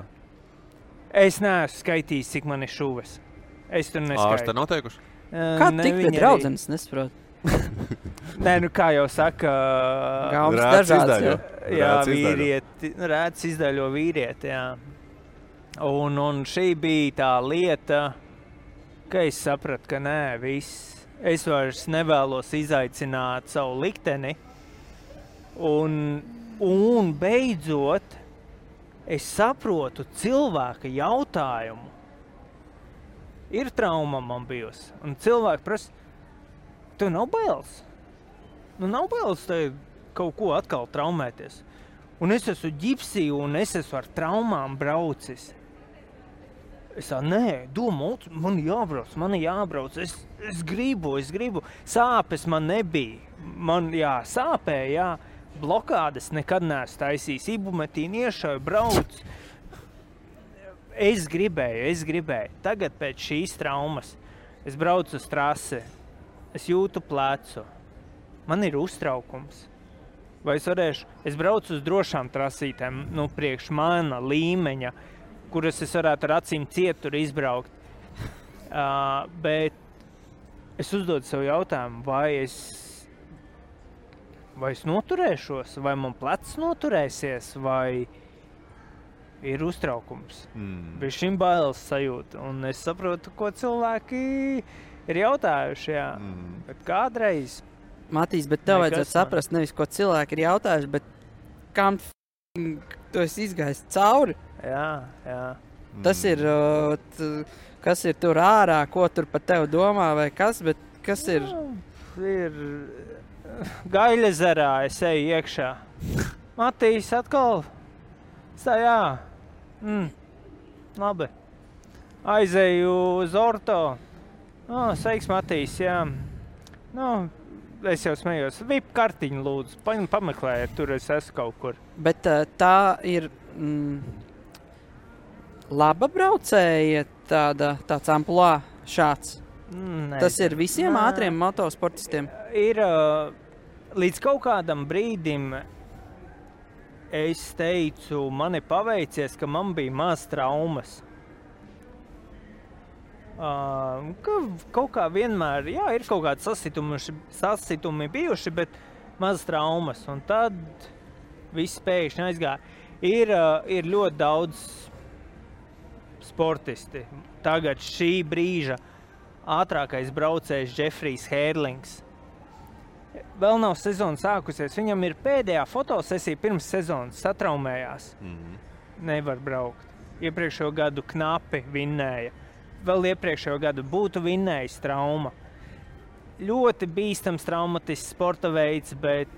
D: Es neesmu skaitījis, cik man ir šuves. Es tur neskaitu.
C: Ārste nav teikuši?
E: Kā tik pie draudzenes, nesaprotu?
D: Nē, kā jau saka...
E: Gaumas dažāds,
D: jā, vīrieti, rēts izdaļo vīrieti, jā. Un šī bija tā lieta, ka es sapratu, ka nē, viss. Es vairs nevēlos izaicināt savu likteni. Un beidzot, es saprotu cilvēka jautājumu. Ir trauma man bijusi. Un cilvēki prasa, tev nav bailes? Nu, nav bailes tev kaut ko atkal traumēties. Un es esmu ģipsī un es esmu ar traumām braucis. Es tā, nē, domāju, man jābrauc, es gribu. Sāpes man nebija. Man, sāpēja, blokādes nekad neesmu taisījis. Ibumetīnu iešauju, brauc. Es gribēju. Tagad pēc šīs traumas es braucu uz trasi. Es jūtu plecu. Man ir uztraukums. Vai es braucu uz drošām trasītēm, priekš mana līmeņa, kuras es varētu ar acīm cietur izbraukt. Bet es uzdodu sev jautājumu, vai es noturēšos, vai man plecs noturēsies, vai ir uztraukums. Bez šim bailes sajūta. Un es saprotu, ko cilvēki ir jautājuši, bet kādreiz...
E: Matīs, bet tev vajadzētu saprast nevis, ko cilvēki ir jautājuši, bet kam tu esi izgājis cauri.
D: Jā.
E: Tas ir, kas ir tur ārā, ko tur par tevi domā vai kas, bet kas ir?
D: Ir Gaļezerā, es eju iekšā. Matīs atkal, labi. Aizeju uz orto. Sveiks, Matīs, jā. Es jau smējos. VIP kartiņu lūdzu, pameklējiet, tur es esmu kaut kur.
E: Bet tā ir laba braucēja tāds amplua šāds? Tas ir visiem ātriem motosportistiem?
D: Ir līdz kaut kādam brīdim es teicu, man ir paveicies, ka man bija maz traumas. Kaut kā vienmēr, ir kaut kādi sasitumi bijuši, bet maz traumas. Un tad viss pēkšņi aizgāja. Ir ļoti daudz sportisti. Tagad šī brīža ātrākais braucējs Jeffrijs Hērlings. Vēl nav sezona sākusies. Viņam ir pēdējā fotosesija pirms sezonas satraumējās. Nevar braukt. Iepriekšējo gadu knapi vinnēja. Vēl iepriekšējo gadu būtu vinnējis trauma. Ļoti bīstams traumatisks sporta veids, bet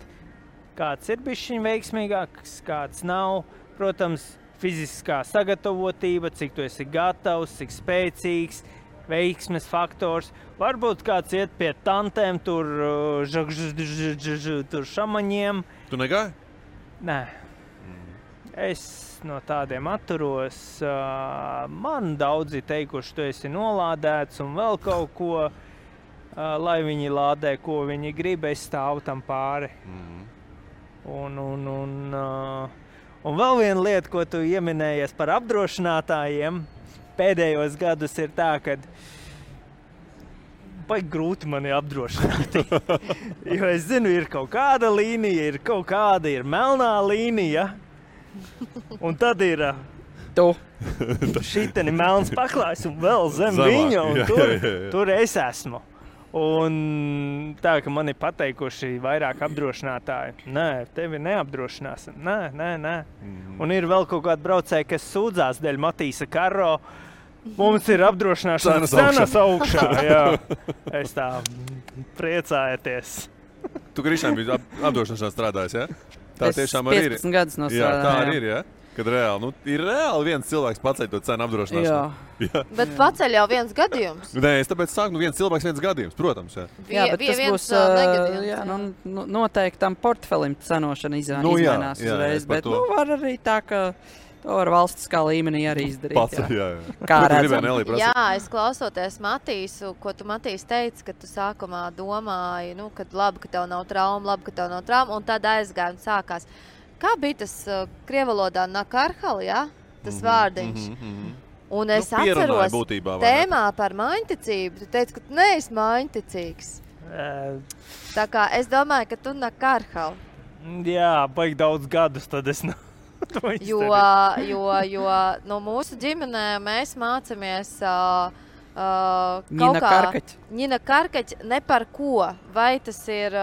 D: kāds ir bišķiņ veiksmīgāks, kāds nav. Protams, fiziskā sagatavotība, cik tu esi gatavs, cik spēcīgs, veiksmes faktors. Varbūt kāds iet pie tantēm, tur šamaņiem.
C: Tu negāji?
D: Nē. Es no tādiem atturos. Man daudzi teikuši, tu esi nolādēts un vēl kaut ko, lai viņi lādē, ko viņi grib, es stāvu tam pāri. Un vēl viena lieta, ko tu ieminējies par apdrošinātājiem, pēdējos gadus ir tā, ka baigi grūti mani apdrošināt. Jo es zinu, ir kaut kāda līnija, ir melnā līnija. Un tad ir šiteni melns paklājs un vēl zem viņa, un tur es esmu. Un tā, ka man ir pateikuši vairāk apdrošinātāji, nē, tevi neapdrošināsim, nē. Un ir vēl kaut kādi braucēji, kas sūdzās dēļ Matīsa Karro, mums ir apdrošināšanas cenas augšā, jā. Es tā priecājieties.
C: Tu, Krišņām, biji apdrošināšanā strādājis, jā? Tā tiešām arī ir.
E: 15 gadus nostrādāju.
C: Jā, tā arī ir, jā? Kad reāli, ir reāli viens cilvēks paceļ to cenu apdrošināšanu.
F: Jā. Bet paceļ jau viens gadījums.
C: Nē, es tāpēc sāku, viens cilvēks, viens gadījums, protams, jā.
E: Jā, bet tas būs, noteikti tam portfelim cenošana izmainās uzreiz, bet var arī tā, ka to var valstiskā līmenī arī izdarīt.
C: Paceļ, jā.
E: Kā redzam.
F: Jā, es klausoties Matīsu, ko tu Matīs teici, ka tu sākumā domāji, kad labi, ka tev nav trauma, un tad aizgāja un sākās. Kā bija tas krievalodā nakarhal, jā? Tas vārdiņš. Un es atceros
C: būtībā,
F: tēmā par maiņticību. Tu teici, ka tu neesi maiņticīgs. Tā kā es domāju, ka tu nakarhal.
D: Jā, baigi daudz gadus, tad es to
F: izdarīju. Jo no mūsu ģimenē mēs mācamies
E: Ņina
F: Karkaķi ne par ko. Vai tas ir...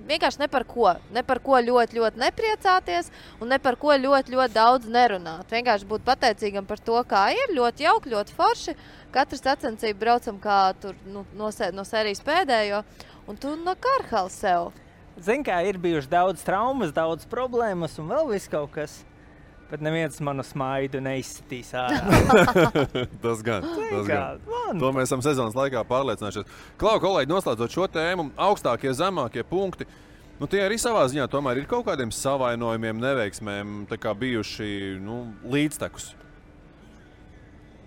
F: vienkārši ne par ko ļoti, ļoti nepriecāties un ne par ko ļoti, ļoti daudz nerunāt. Vienkārši būt pateicīgam par to, kā ir, ļoti jauki, ļoti forši. Katrs sacensību braucam kā tur no sērijas pēdējo, un tu no Karhala sev.
D: Zini, kā ir bijuši daudz traumas, daudz problēmas un vēl viss kaut kas. Bet neviens manu smaidu neizsitīs ārā.
C: Tas gan. To mēs esam sezonas laikā pārliecinājušies. Klau, kolēģi, noslēdzot šo tēmu, augstākie, zemākie punkti, tie arī savā ziņā tomēr ir kaut kādiem savainojumiem, neveiksmēm tā kā bijuši līdztekus.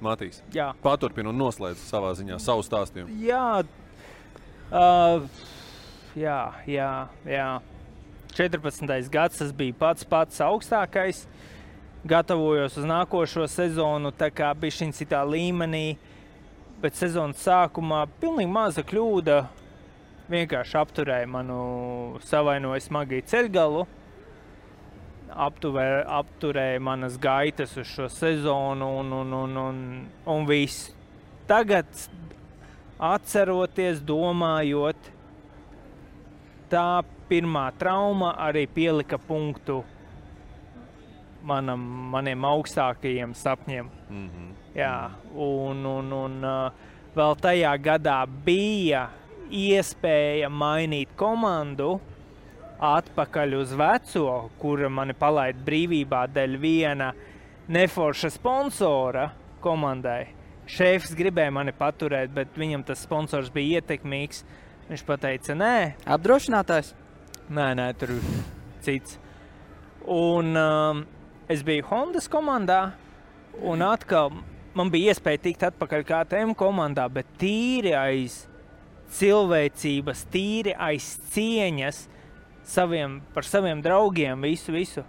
C: Matīs, paturpina un noslēdz savā ziņā savu stāstījumu.
D: Jā. 14. gads tas bija pats augstākais. Gatavojos uz nākošo sezonu, tā kā bišķiņ citā līmenī, bet sezonas sākumā pilnīgi maza kļūda vienkārši apturēja manu savainoju smagi ceļgalu, apturēja manas gaitas uz šo sezonu un viss. Tagad atceroties, domājot, tā pirmā trauma arī pielika punktu maniem augstākajiem sapņiem. Jā, un vēl tajā gadā bija iespēja mainīt komandu atpakaļ uz veco, kura mani palaida brīvībā dēļ viena neforša sponsora komandai. Šefs gribēja mani paturēt, bet viņam tas sponsors bija ietekmīgs. Viņš pateica, nē.
E: Apdrošinātājs?
D: Nē, tur cits. Un es biju Hondas komandā, un atkal man bija iespēja tikt atpakaļ KTM komandā, bet tīri aiz cilvēcības, tīri aiz cieņas par saviem draugiem, visu.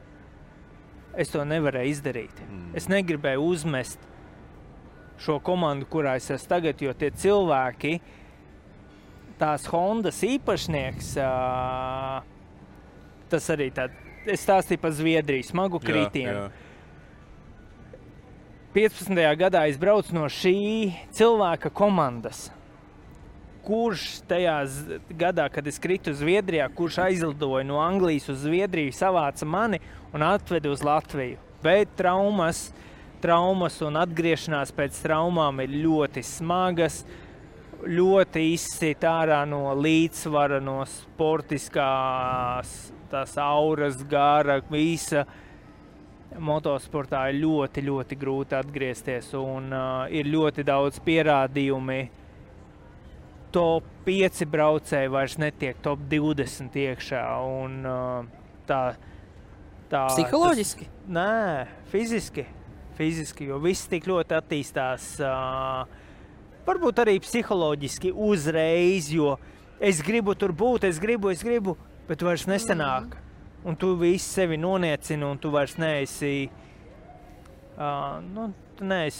D: Es to nevarēju izdarīt. Es negribēju uzmest šo komandu, kurā es esmu tagad, jo tie cilvēki, tās Hondas īpašnieks, tas arī es stāstīju par Zviedriju, smagu kritienu. 15. gadā es braucu no šī cilvēka komandas, kurš tajā gadā, kad es kritu Zviedrijā, kurš aizlidoja no Anglijas uz Zviedriju, savāca mani un atveda uz Latviju. Bet traumas un atgriešanās pēc traumām ir ļoti smagas, ļoti izsit ārā no līdzsvara, no sportiskās tās auras, gara, visa. Motosportā ir ļoti, ļoti grūti atgriezties un ir ļoti daudz pierādījumi. Top 5 braucēji vairs netiek top 20 iekšā un tā
E: psiholoģiski?
D: Nē, fiziski, jo viss tik ļoti attīstās. Varbūt arī psiholoģiski uzreiz, jo es gribu tur būt, es gribu, bet vairs nesanāk. Un tu visi sevi noniecini, un tu vairs neesi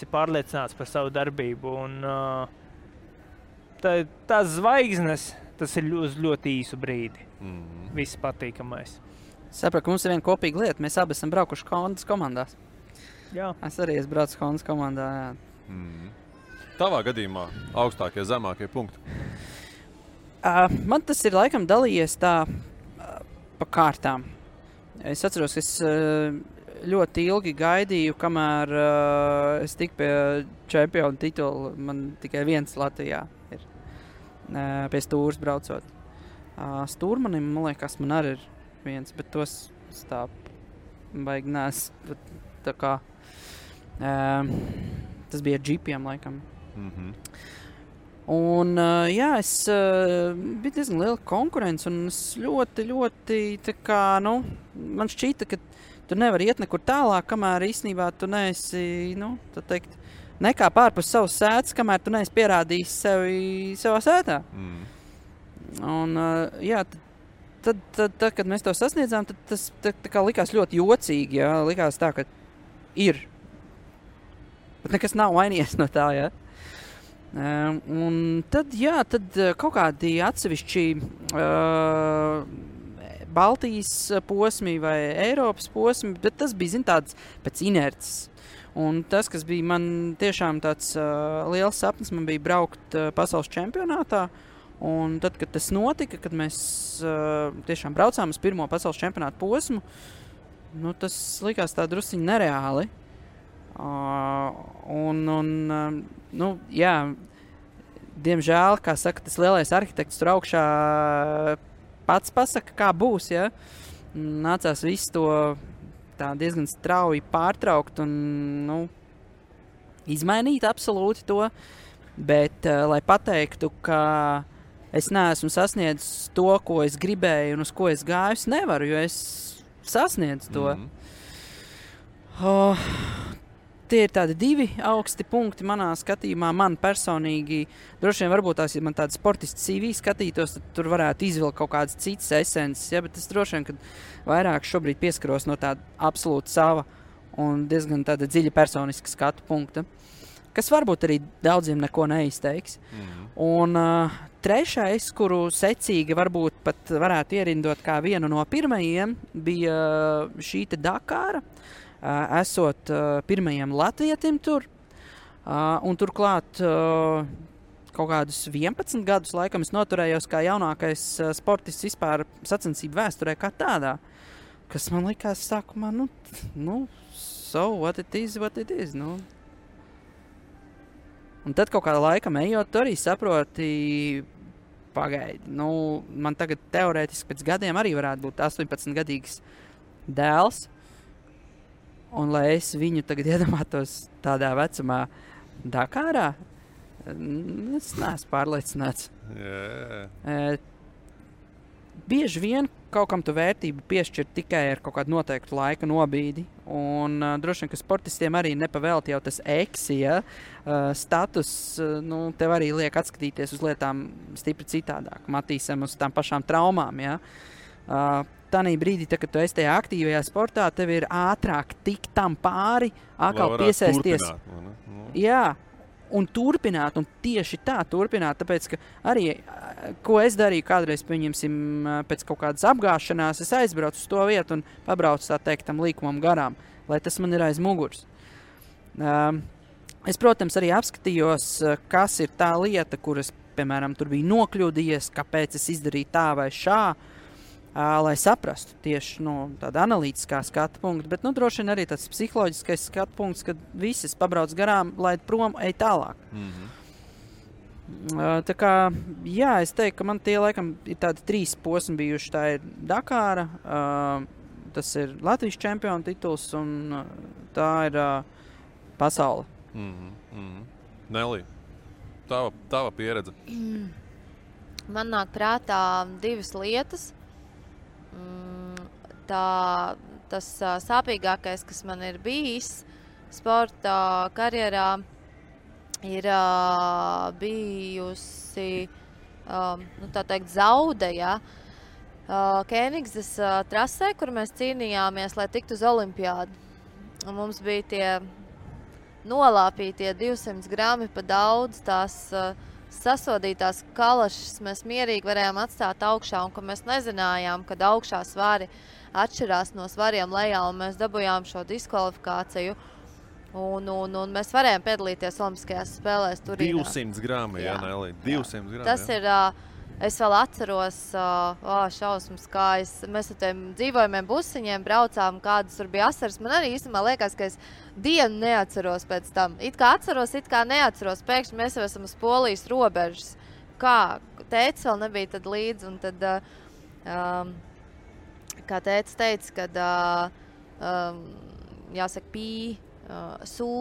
D: pārliecināts par savu darbību. Un tās zvaigznes, tas ir uz ļoti īsu brīdi. Viss patīkamais.
E: Sapratu, ka mums ir viena kopīga lieta. Mēs abi esam braukuši Hondas komandās.
D: Jā.
E: Es arī esmu braucis Hondas komandā, jā.
C: Tavā gadījumā augstākie, zemākie punkti?
E: Man tas ir laikam dalījies tā pa kārtām. Es atceros, ka es ļoti ilgi gaidīju, kamēr es tiku pie čempionu titula. Man tikai viens Latvijā ir pie Stūras braucot. Stūrmanim, man liekas, man arī ir viens, bet tos tā baigi nēs. Tā kā tas bija džipiem laikam. Un, jā, bija diezgan liela konkurence, un es ļoti, tā kā, man šķita, ka tu nevari iet nekur tālāk, kamēr īstenībā tu neesi, tā teikt, nekā pārpus savas sētas, kamēr tu neesi pierādījis sevi savā sētā. Un, jā, tad, kad mēs to sasniedzām, tad tas tā kā likās ļoti jocīgi, jā, likās tā, ka ir. Bet nekas nav mainījies no tā, jā. Un tad, jā, kaut kādi atsevišķi Baltijas posmi vai Eiropas posmi, bet tas bija, tāds pēc inerces. Un tas, kas bija man tiešām tāds liels sapnis, man bija braukt pasaules čempionātā, Un tad, kad tas notika, kad mēs tiešām braucām uz pirmo pasaules čempionātu posmu, tas likās tā drusciņi nereāli. Diemžēl, kā saka, tas lielais arhitekts tur augšā pats pasaka, kā būs, ja? Nācās visu to tā diezgan strauji pārtraukt un, izmainīt absolūti to, bet, lai pateiktu, ka es neesmu sasniedzis to, ko es gribēju un uz ko es gāju, es nevaru, jo es sasniedzu to. Tie ir tādi 2 augsti punkti manā skatījumā. Man personīgi, droši vien varbūt tās, ja man tāda sportisti CV skatītos, tad tur varētu izvilkt kaut kādas citas esences, ja, bet es droši vien, kad vairāk šobrīd pieskaros no tāda absolūti sava un diezgan tāda dziļa personiska skatu punkta, kas varbūt arī daudziem neko neizteiks. Un trešais, kuru secīgi varbūt pat varētu ierindot kā vienu no pirmajiem, bija šī te Dakāra. Esot pirmajiem latvietim tur, un turklāt kaut kādus 11 gadus laikam es noturējos kā jaunākais sportists vispār sacensību vēsturē kā tādā, kas man likās sākumā, so what it is, Un tad kaut kādā laikam ejot, tu arī saproti, pagaidi, man tagad teorētiski pēc gadiem arī varētu būt 18-gadīgs dēls, un lai es viņu tagad iedomātos tādā vecumā Dakārā, es neesmu pārliecināts. Bieži vien kaut kam tu vērtību piešķir tikai ar kaut kādu noteiktu laika nobīdi, un droši vien, ka sportistiem arī nepavēlti jau tas eksi, ja? Status, tev arī liek atskatīties uz lietām stipri citādāk, matīsim uz tām pašām traumām, ja? Tanī brīdī, kad tu esi tajā aktīvajā sportā, tev ir ātrāk tikt tam pāri, atkal piesaisties. Jā, un turpināt, un tieši tā turpināt, tāpēc, ka arī, ko es darīju kādreiz, pieņemsim, pēc kaut kādas apgāšanās, es aizbraucu uz to vietu un pabraucu, tā teikt, tam līkumam garām, lai tas man ir aiz muguras. Es, protams, arī apskatījos, kas ir tā lieta, kuras, piemēram, tur bija nokļūdījies, kāpēc es izdarīju tā vai šā, lai saprastu tieši tāda analītiskā skatu punkta, bet droši vien arī tāds psiholoģiskais skatu punkts, kad visas pabrauc garām, laid prom, ej tālāk. Tā kā, jā, es teiktu, ka man tie laikam ir tādi 3 posmi bijuši. Tā ir Dakāra, tas ir Latvijas čempiona tituls un tā ir pasaule.
G: Nelī, tava pieredze?
F: Man nāk prātā 2 lietas. Tas sāpīgākais, kas man ir bijis sporta karjerā, ir bijusi, tā teikt, zaude, ja? Kēnigses trasē, kur mēs cīnījāmies, lai tiktu uz olimpiādu. Un mums bija tie nolāpītie 200 grami pa daudz, tās sasodītās kalašas mēs mierīgi varējām atstāt augšā, un ka mēs nezinājām, kad augšā svari atšķirās no svariem lejā, un mēs dabujām šo diskvalifikāciju, un mēs varējām piedalīties Olimpiskajās spēlēs Turīnā.
G: 200 grami, jā, Nelī, 200 grami.
F: Tas ir, es vēl atceros, šausmas, kā mēs ar tiem dzīvojumiem busiņiem braucām, kādas tur bija asaras. Man arī īstenībā liekas, ka es dienu neatceros pēc tam. It kā atceros, it kā neatceros. Pēkšņi mēs jau esam uz Polijas robežas. Kā tētis vēl nebija tad līdzi, un tad, kā tētis teica, kad, jāsaka, sū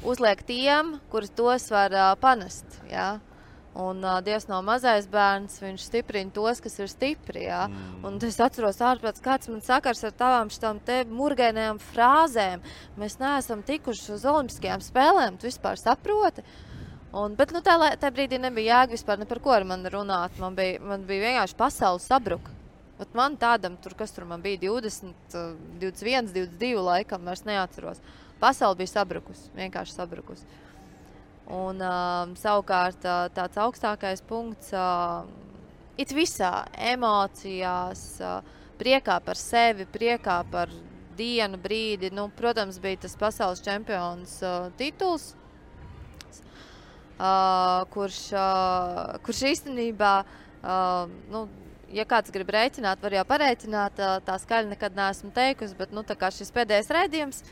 F: uzliek tiem, kurus tos var panest, jā. Un Dievs nav mazais bērns, viņš stiprina tos, kas ir stipri, jā. Un es atceros ārprāts, kāds man sakars ar tavām šitām te murgainajām frāzēm. Mēs neesam tikuši uz Olimpiskajām spēlēm, tu vispār saproti? Bet tā brīdī nebija jēga vispār ne par ko ar mani runāt. Man bija vienkārši pasaule sabruka. Man tādam, kas tur man bija 20, 21, 22 laikam, vairs neatceros. Pasaule bija sabrukus, vienkārši sabrukus. Un savukārt tāds augstākais punkts it visā emocijās, priekā par sevi, priekā par dienu, brīdi. Protams, bija tas pasaules čempions tituls. kurš īstenībā, ja kāds grib rēķināt, var jau parēķināt, tā skaļi nekad neesmu teikusi, bet tā kā šis pēdējais raidījums,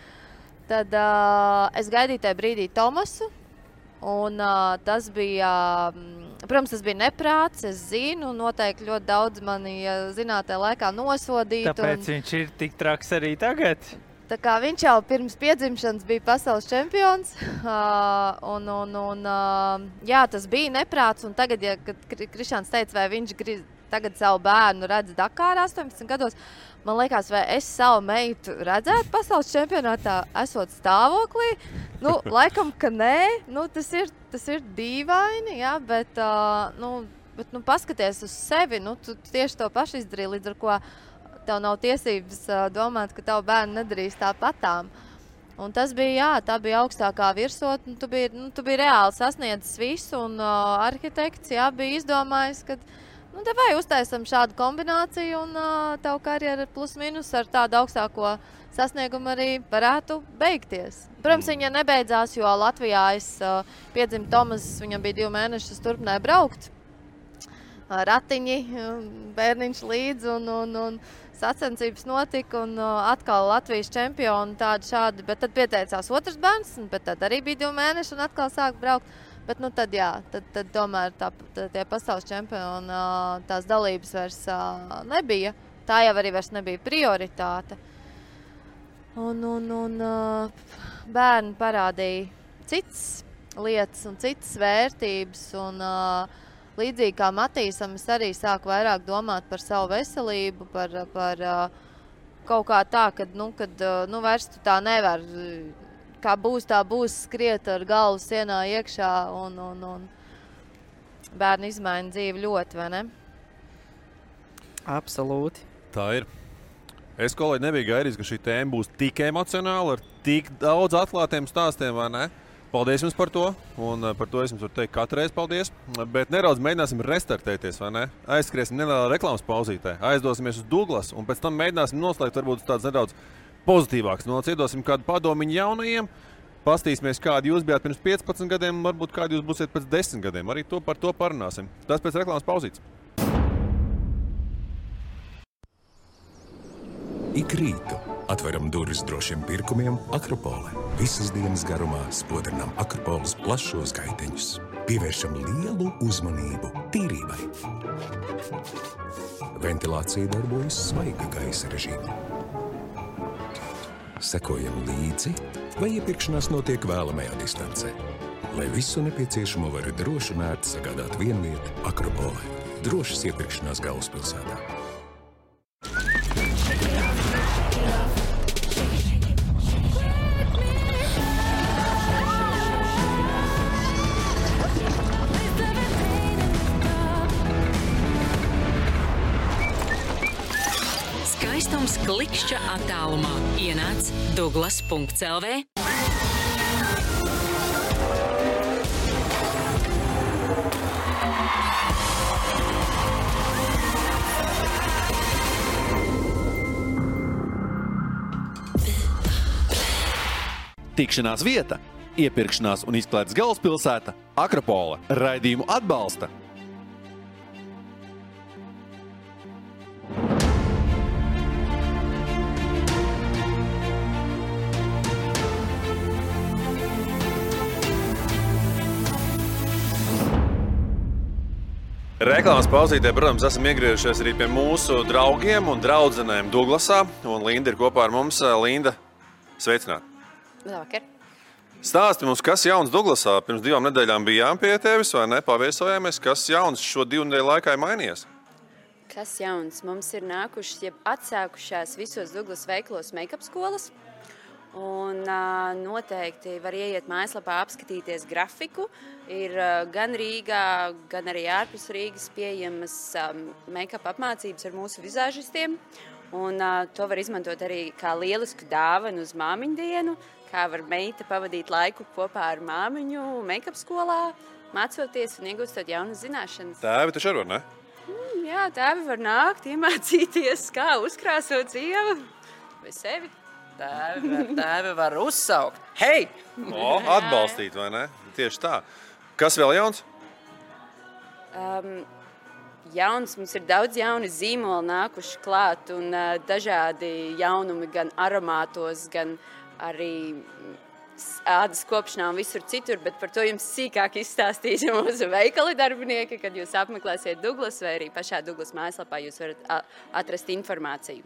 F: tad es gaidīju tajā brīdī Tomasu, un tas bija, protams, tas bija neprāts, es zinu, noteikti ļoti daudz mani zinātajā laikā nosodīt.
D: Tāpēc viņš ir tik traks arī tagad?
F: Tā kā viņš jau pirms piedzimšanas bija pasaules čempions, jā, tas bija neprāts, un tagad, kad Krišāns teica, vai viņš tagad savu bērnu redz Dakārā 18 gados, man liekas, vai es savu meitu redzētu pasaules čempionātā, esot stāvoklī, laikam, ka nē, tas ir dīvaini, jā, bet paskaties uz sevi, tu tieši to pašu izdarīji, līdz ar ko tev nav tiesības domāt, ka tavu bērnu nedarīs tāpatām. Un tas bija, jā, tā bija augstākā virsotne, tu biji reāli sasniedzis visu, un arhitekts, jā, bija izdomājis, ka te vai uztaisam šādu kombināciju, un tavu karjeru plus minus ar tādu augstāko sasniegumu arī varētu beigties. Protams, viņa nebeidzās, jo Latvijā piedzimu Tomas, viņam bija 2 mēnešus, turpināja braukt. Ratiņi, bērniņš līdz, un sacensības notika, un atkal Latvijas čempioni tādi šādi, bet tad pieteicās otrs bērns, bet tad arī bija 2 mēneši, un atkal sāk braukt. Bet tad jā, tad tomēr tie pasaules čempioni tās dalības vairs nebija. Tā jau arī vairs nebija prioritāte. Un bērni parādīja citas lietas un citas vērtības. Un līdzīgi kā Matīsam, es arī sāku vairāk domāt par savu veselību, par kaut kā tā, kad vairs tu tā nevar. Kā būs, tā būs, skriet ar galvu sienā iekšā, un bērni izmaina dzīvi ļoti, vai ne?
D: Absolūti.
C: Tā ir. Es, kolēģi, nebiju gaidījis, ka šī tēma būs tik emocionāla, ar tik daudz atklātiem stāstiem, vai ne? Paldies jums par to, un par to es jums varu teikt katru reizi paldies. Bet nedaudz mēģināsim restartēties, vai ne? Aizskriesim nelielā reklāmas pauzītē, aizdosimies uz Douglasu, un pēc tam mēģināsim noslēgt varbūt tāds nedaudz pozitīvāks. Iedosim kādu padomiņu jaunajiem, pastīsimies, kādi jūs bijāt pirms 15 gadiem, un varbūt kādi jūs būsiet pēc 10 gadiem. Arī par to parunāsim. Tas pēc reklāmas pauzītes.
A: Ik rītu atveram durvis drošiem pirkumiem Akropole. Visas dienas garumā spodrinām Akropoles plašos gaiteņus. Pievēršam lielu uzmanību tīrībai. Ventilācija darbojas svaiga gaisa režīmā. Sekojam līdzi, vai iepirkšanās notiek vēlamajā distancē. Lai visu nepieciešamo var droši un ērti sagādāt vienvieta Akropole. Drošas iepirkšanās galvaspilsētā.
B: Skaistums klikšķa attālumā. Ienāc Douglas.lv.
H: Tikšanās vieta, iepirkšanās un izklaides galvaspilsēta Akropole. Raidījumu atbalsta
C: Reklāmas pauzītē, protams, esam iegriežušies arī pie mūsu draugiem un draudzenēm Douglasā, un Linda ir kopā ar mums. Linda, sveicināt!
I: Labvakar!
C: Stāsti mums, kas jauns Douglasā? Pirms 2 nedēļām bijām pie tevis, vai ne? Paviesojāmies, kas jauns šo 2 nedēļu laikā ir mainījies?
I: Kas jauns? Mums ir nākušas, jeb atsākušās visos Douglas veikalos make-up skolas. Un noteikti var ieiet mājaslapā, apskatīties grafiku. Ir gan Rīgā, gan arī ārpus Rīgas pieejamas make-up apmācības ar mūsu vizāžistiem. Un to var izmantot arī kā lielisku dāvanu uz māmiņu dienu, kā var meita pavadīt laiku kopā ar māmiņu make-up skolā, mācoties un iegūstot jaunas zināšanas.
C: Tēvi taču arī var, ne?
I: Jā, tēvi var nākt, iemācīties, kā uzkrāsot sievu vai sevi.
E: Tēvi var uzsaukt. Hei!
C: Atbalstīt, vai ne? Tieši tā. Kas vēl jauns?
I: Jauns, mums ir daudz jauni zīmoli nākuši klāt un dažādi jaunumi gan aromātos, gan arī ādas kopšanā un visur citur, bet par to jums sīkāk izstāstīs mūsu veikali darbinieki, kad jūs apmeklēsiet Douglas vai arī pašā Douglas mājaslapā jūs varat atrast informāciju.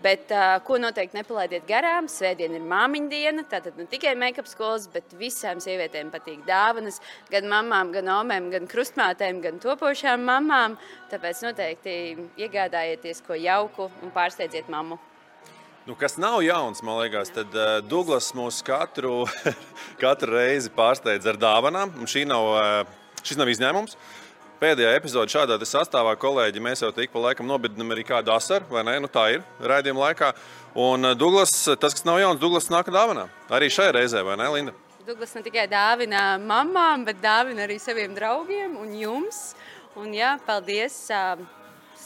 I: Bet ko noteikti nepalaidiet garām, svētdien ir māmiņu diena, tātad ne tikai make-up skolas, bet visām sievietēm patīk dāvanas, gan mamām, gan omēm, gan krustmātēm, gan topošām mamām, tāpēc noteikti iegādājieties ko jauku un pārsteidziet mammu.
C: Nu, kas nav jauns, man liekas, tad Douglas mūs katru reizi pārsteidz ar dāvanām, un šis nav izņēmums. Pēdējā epizode šādā sastāvā, kolēģi, mēs jau tik pa laikam nobidinam arī kādu asaru, vai ne? Nu tā ir raidījuma laikā. Un Douglas, tas, kas nav jauns, Douglas nāk dāvanā. Arī šajā reizē, vai ne, Linda?
I: Douglas ne tikai dāvina mamām, bet dāvina arī saviem draugiem un jums. Un jā, paldies.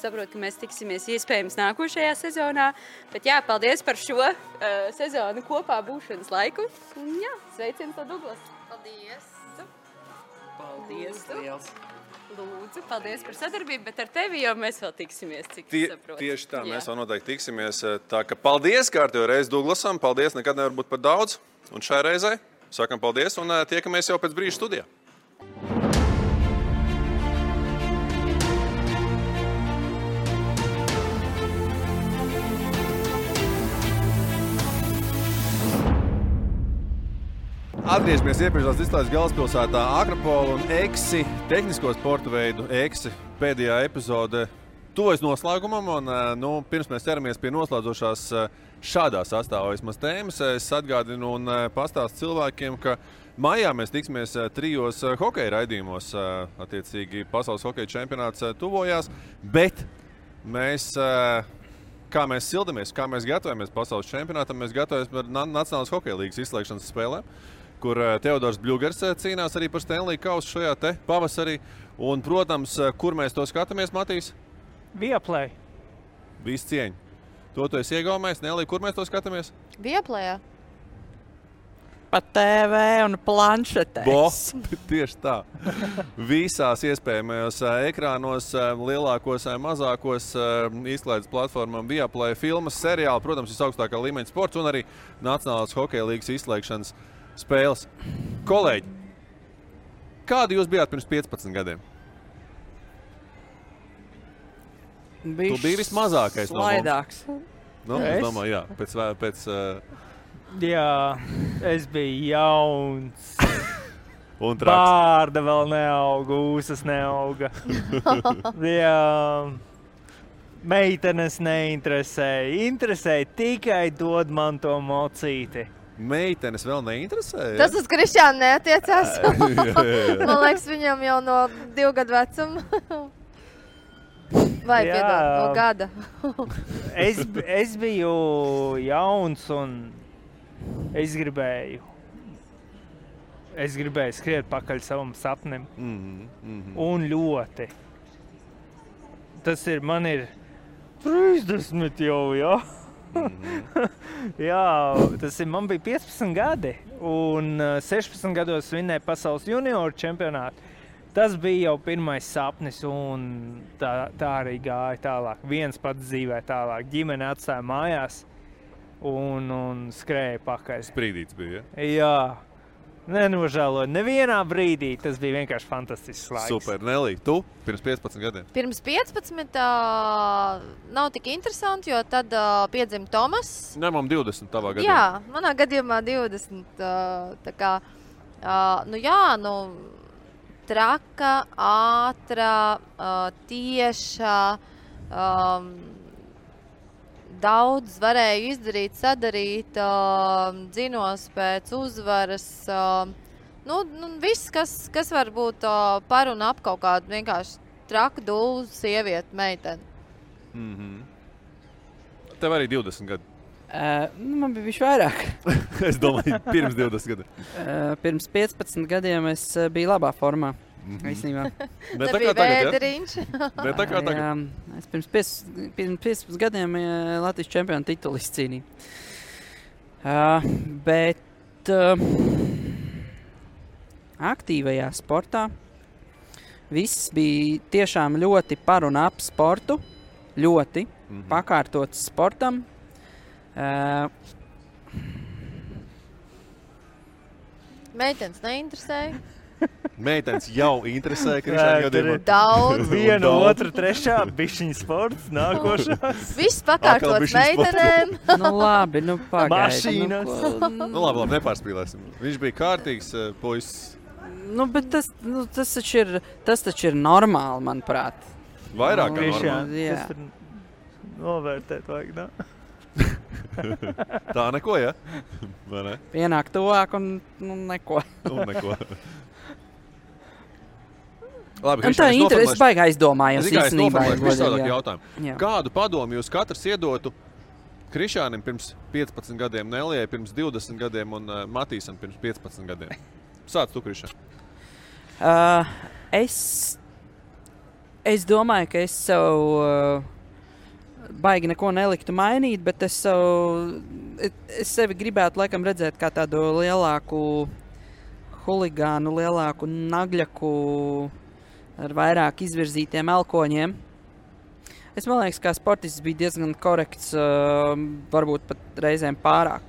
I: Saprotu, ka mēs tiksimies iespējams nākošajā sezonā. Bet jā, paldies par šo sezonu kopā būšanas laiku. Un jā, sveiciens no Douglas. Paldies.
E: Paldies, liels.
I: Lūdzu, paldies par sadarbību, bet ar tevi jau mēs vēl tiksimies, cik saprotu.
C: Tieši tā, mēs vēl noteikti tiksimies. Tā ka paldies kārtējo reizi Douglasam, paldies, nekad nevar būt par daudz. Un šai reizei sakam paldies un tiekamies jau pēc brīža studijā. Atgriežamies iepriekšās izklaides galvaspilsētā Akropola un EKSI, tehnisko sporta veidu EKSI pēdējā epizode tuvojas noslēgumam. Un, pirms mēs ķeramies pie noslēdzošās šādā sastāvā vismaz tēmas, es atgādinu un pastāstu cilvēkiem, ka maijā mēs tiksimies 3 hokeja raidījumos. Attiecīgi pasaules hokeja čempionāts tuvojās, bet mēs... Kā mēs sildamies, kā mēs gatavojamies pasaules čempionātam, mēs gatavojamies par Nacionālās hokeja līgas izslēgšanas spēlēm, kur Teodors Bļugers cīnās arī par Stanley kausu šajā te pavasarī. Un, protams, kur mēs to skatāmies, Matīs?
D: Viaplay.
C: Viss cieņa. To tu esi iegaumējis, Nelī, kur mēs to skatāmies?
F: Viaplayā.
J: Pa TV un planšetēs.
C: Tieši tā. Visās iespējamajos ekrānos, lielākos, mazākos izklaides platformām Viaplay filmas, seriāli, protams, visaugstākā līmeņa sports un arī Nacionālās hokeja līgas izslēgšanas spēles. Kolēģi, kādi jūs bijāt pirms 15 gadiem? Tu biji vismazākais no mums. Es domāju, jā, pēc
D: Jā, es biju jauns.
C: Un traks.
D: Bārda vēl neauga, ūsas neauga. Jā, meitenes neinteresēja. Interesēja tikai dod man to mocīti.
C: Meitenes vēl neinteresēja?
F: Tas uz Krišānu neatiecās. Man liekas, viņam jau no 2 gadu vecuma. Vai, piedod, no gada.
D: Es biju jauns un es gribēju skriet pakaļ savam sapnim. Un ļoti. Man ir 30 jau, jā. Jā, man bija 15 gadi. Un 16 gados vinnēja pasaules junioru čempionātu. Tas bija jau pirmais sapnis un tā arī gāja tālāk. Viens pats dzīvē tālāk. Ģimene atstāja mājās. Un skrēja pakaļ.
C: Sprīdīts bija, ja?
D: Jā. Nenožēloju. Nevienā brīdī tas bija vienkārši fantastisks laiks.
C: Super. Nelī, tu pirms 15 gadiem?
F: Pirms 15 nav tik interesanti, jo tad piedzima Tomas.
C: Ņemam 20 tavā gadījumā.
F: Jā, manā gadījumā 20. Tā kā, traka, ātra, tieša, daudz varēju izdarīt, sadarīt, dzinos pēc uzvaras. Viss, kas var būt par un ap kaut kādu vienkārši traku dūlu sievieti, meiteni.
C: Tev arī 20 gadi.
J: Man bija bišķi vairāk.
C: Es domāju, pirms 20 gadiem.
J: Pirms 15 gadiem es biju labā formā. Īstenībā.
C: Ne tā kā tagad,
J: Ne tā kā tagad. Jā, es pirms 15 gadiem Latvijas čempionu titulu izcīnīju. aktīvajā sportā. Viss bija tiešām ļoti par un ap sportu, ļoti pakārtots sportam.
F: Meitenes neinteresēja.
C: Meitenes jau interesē Krišāna gadījumā.
F: Daudz.
D: Viena, otra, trešā, bišķiņa sports, nākošās.
F: Viss pakārtots meitenēm.
J: Nu labi, nu pagaidi.
D: Mašīnas.
C: Nu labi, nepārspīlēsim. Viņš bija kārtīgs puisis.
J: Nu, bet tas taču ir normāli, manuprāt.
C: Vairāk kā
D: Krišāna,
C: normāli.
J: Jā.
D: tas tur novērtēt vajag, ne?
C: Tā neko, ja? Vai ne?
J: Pienāk tuvāk un neko.
C: Un neko. Labi,
J: Un tā interesi baigi aizdomājos
C: Es tikai
J: īstenībā.
C: noformulēšu visādāk jautājumu.
J: Jā.
C: Kādu padomu jūs katrs iedotu Krišānim pirms 15 gadiem, Nelijai pirms 20 gadiem un Matīsam pirms 15 gadiem? Sāc tu, Krišān.
J: Es domāju, ka es sev baigi neko neliktu mainīt, bet es sevi gribētu laikam redzēt kā tādu lielāku huligānu, lielāku nagļaku ar vairāk izvirzītiem elkoņiem. Es man liekas, kā sportists bija diezgan korekts, varbūt pat reizēm pārāk.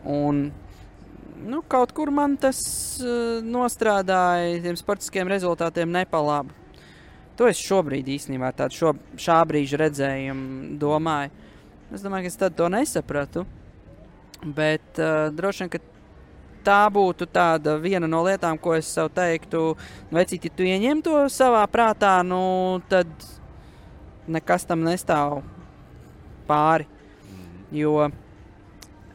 J: Un kaut kur man tas nostrādāja tiem sportiskiem rezultātiem nepalabu. To es šobrīd īstenībā tādu šā brīža redzējumu domāju. Es domāju, ka es tad to nesapratu, bet droši vien, ka tā būtu tāda viena no lietām, ko es sev teiktu, vecīt, ja tu ieņem to savā prātā, tad nekas tam nestāv pāri. Jo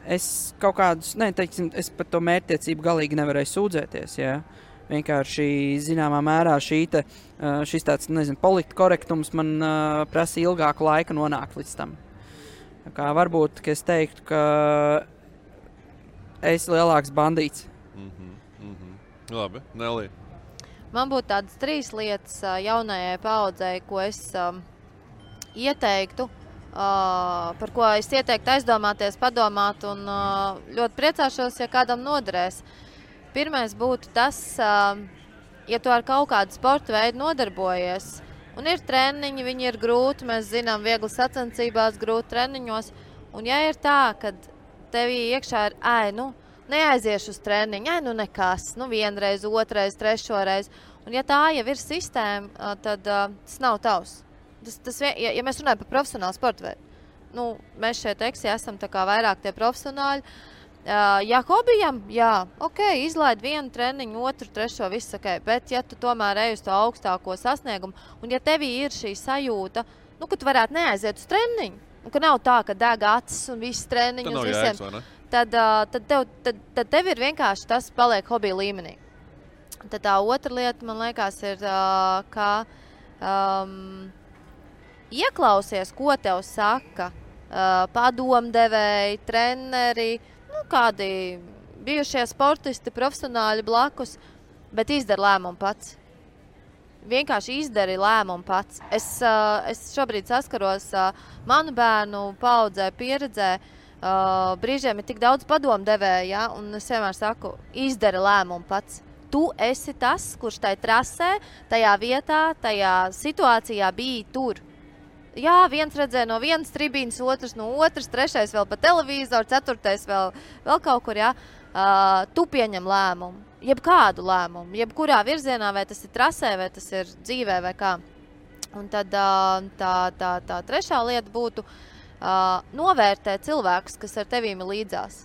J: es kaut kādus, es par to mērķtiecību galīgi nevarēju sūdzēties, jā. Vienkārši zināmā mērā šis tāds, politkorektums man prasa ilgāku laiku nonākt līdz tam. Kā varbūt, ka es teiktu, ka es lielāks bandīts.
C: Labi, Nelija.
F: Man būtu tādas 3 lietas jaunajai paaudzei, ko es ieteiktu, par ko es ieteiktu aizdomāties, padomāt un ļoti priecāšos, ja kādam noderēs. Pirmais būtu tas, ja tu ar kaut kādu sporta veidu nodarbojies, un ir treniņi, viņi ir grūti, mēs zinām, viegli sacensībās, grūti treniņos, un ja ir tā, kad tevī iekšā ir, neaiziešu uz treniņu, nekas, vienreiz, otrais, trešoreiz, un ja tā jau ir sistēma, tad tas nav tavs. Ja mēs runājam par profesionālu sporta veidu, mēs šeit esam tā kā vairāk tie profesionāļi. Ja hobijam, izlaid vienu treniņu, otru, trešo, viss ok, bet ja tu tomēr ej uz to augstāko sasniegumu, un ja tevī ir šī sajūta, ka tu varētu neaiziet uz treniņu, un ka nav tā, ka deg acis un viss treniņus visiem, tad tev ir vienkārši tas paliek hobija līmenī. Tad tā otra lieta, man liekas, ir, ka ieklausies, ko tev saka padomdevēji, treneri, kādi bijušie sportisti, profesionāļi blakus, bet izdari lēmumu pats. Vienkārši izdari lēmumu pats. Es šobrīd saskaros manu bērnu paaudzē, pieredzē, brīžiem ir tik daudz padomdevēju, ja, un es vienmēr saku, izdari lēmumu pats. Tu esi tas, kurš tai trasē, tajā vietā, tajā situācijā bija tur. Jā, viens redzēja no vienas tribīnas, otrs no otras, trešais vēl pa televizoru, ceturtais vēl kaut kur, jā. Tu pieņem lēmumu, jebkādu lēmumu, jebkurā virzienā, vai tas ir trasē, vai tas ir dzīvē, vai kā. Un tad tā trešā lieta būtu novērtēt cilvēkus, kas ar tevīm ir līdzās.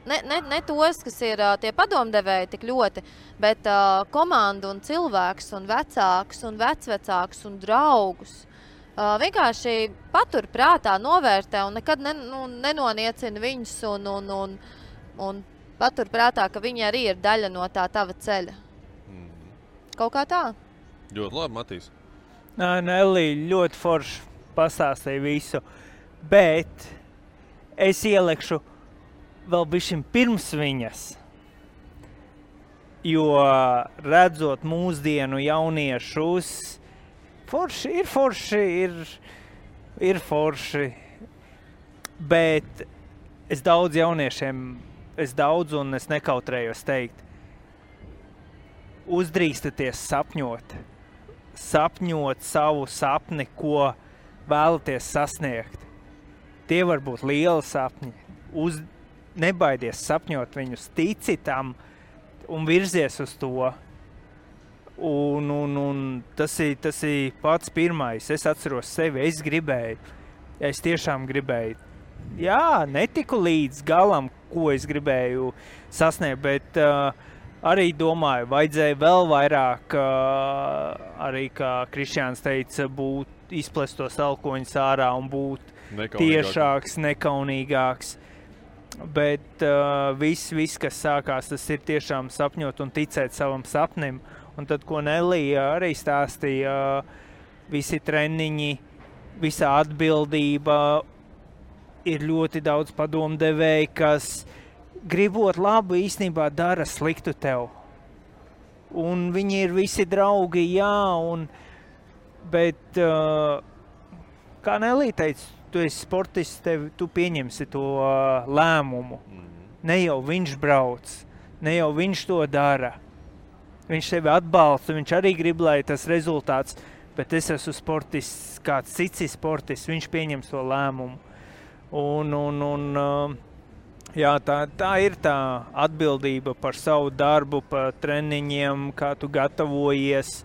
F: Ne tos, kas ir tie padomdevēji tik ļoti, bet komandu un cilvēkus un vecākus un vecvecākus un draugus. Vienkārši patur prātā, novērtē un nekad nenoniecina viņus un patur prātā, ka viņi arī ir daļa no tā tava ceļa. Kaut kā tā.
C: Ļoti labi, Matīs.
D: Nelija ļoti forši pastāstīja visu, bet es ielekšu vēl bišķiņ pirms viņas, jo redzot mūsdienu jauniešus, ir forši, bet es daudz jauniešiem, un es nekautrējos teikt, uzdrīstaties sapņot. Sapņot savu sapni, ko vēlaties sasniegt. Tie var būt lieli sapņi. Nebaidies sapņot viņus, tici tam un virzies uz to. Un tas ir pats pirmais. Es atceros sevi, es tiešām gribēju. Jā, netiku līdz galam, ko es gribēju sasniegt, bet arī domāju, vajadzēja vēl vairāk, arī kā Krišjāns teica, izplest tos elkoņus ārā un būt tiešāks, nekaunīgāks. Bet viss, kas sākās, tas ir tiešām sapņot un ticēt savam sapnim. Un tad, ko Nelija arī stāstīja, visi treniņi, visa atbildība, ir ļoti daudz padomdevēji, kas gribot labu īstenībā dara sliktu tev. Un viņi ir visi draugi, jā, bet, kā Nelija teica, tu esi sportists, tu pieņemsi to lēmumu. Ne jau viņš brauc, ne jau viņš to dara. Viņš tevi atbalsta, viņš arī grib, lai tas rezultāts, bet es esmu sportists, kāds cits ir sportists, viņš pieņems to lēmumu. Jā, tā ir tā atbildība par savu darbu, par treniņiem, kā tu gatavojies,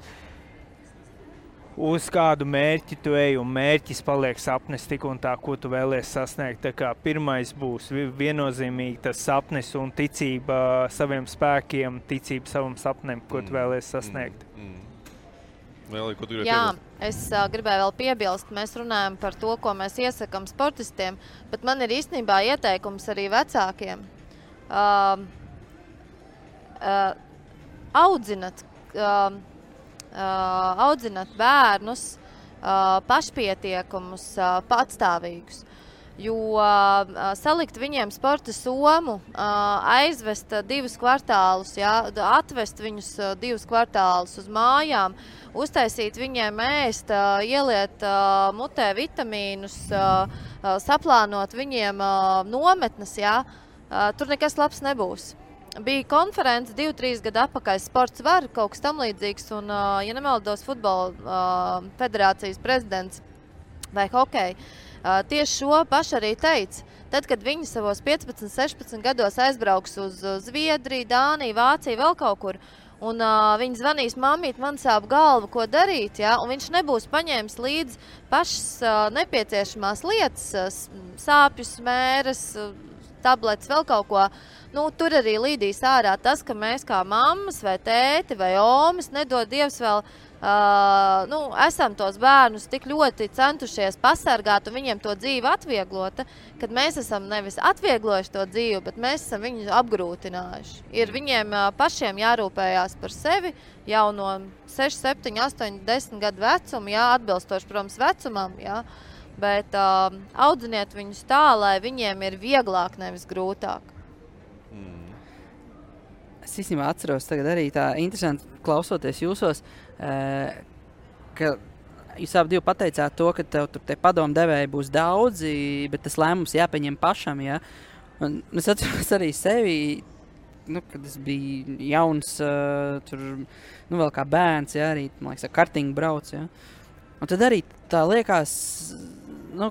D: uz kādu mērķi tu ej, un mērķis paliek sapnis tik un tā, ko tu vēlies sasniegt. Tā kā pirmais būs viennozīmīgi tas sapnis un ticība saviem spēkiem, ticība savam sapnim, ko tu vēlies sasniegt.
C: Nelija, ko tu gribēji
F: Jā,
C: piebilst?
F: es gribēju vēl piebilst, mēs runājam par to, ko mēs iesakam sportistiem, bet man ir īstenībā ieteikums arī vecākiem. Audzinat bērnus pašpietiekumus, patstāvīgus. Jo salikt viņiem sporta somu, aizvest 2 kvartālus, atvest viņus 2 kvartālus uz mājām, uztaisīt viņiem ēst, ieliet mutē vitamīnus, saplānot viņiem nometnes, tur nekas labs nebūs. Bija konference 2-3 gadu atpakaļ, sports var, kaut kas tam līdzīgs, un, ja nemaldos, futbola federācijas prezidents vai hokeja, tieši šo pašu arī teica. Tad, kad viņi savos 15, 16 gados aizbrauks uz Zviedriju, Dāniju, Vāciju, vēl kaut kur, un viņi zvanīs, mamīt, man sāp galva, ko darīt, un viņš nebūs paņēmis līdz pašas nepieciešamās lietas, sāpjus, mēras, tabletes, vēl kaut ko. Tur arī līdīs ārā tas, ka mēs kā mammas vai tēti vai omas, nedod Dievs vēl, esam tos bērnus tik ļoti centušies pasargāt un viņiem to dzīvi atvieglota, kad mēs esam nevis atvieglojuši to dzīvi, bet mēs esam viņu apgrūtinājuši. Ir viņiem pašiem jārūpējās par sevi jau no 6, 7, 8, 10 gadu vecuma, atbilstoši, protams, vecumam, bet audziniet viņus tā, lai viņiem ir vieglāk, nevis grūtāk.
J: Es īstenībā atceros tagad arī tā interesanti klausoties jūsos, ka jūs abi pateicāt to, ka tev tur te padomdevēji būs daudzi, bet tas lēmums jāpieņem pašam, Un es atceros arī sevi, kad es biju jauns, tur, vēl kā bērns, arī, man liekas, kartiņu brauc, Un tad arī tā liekas,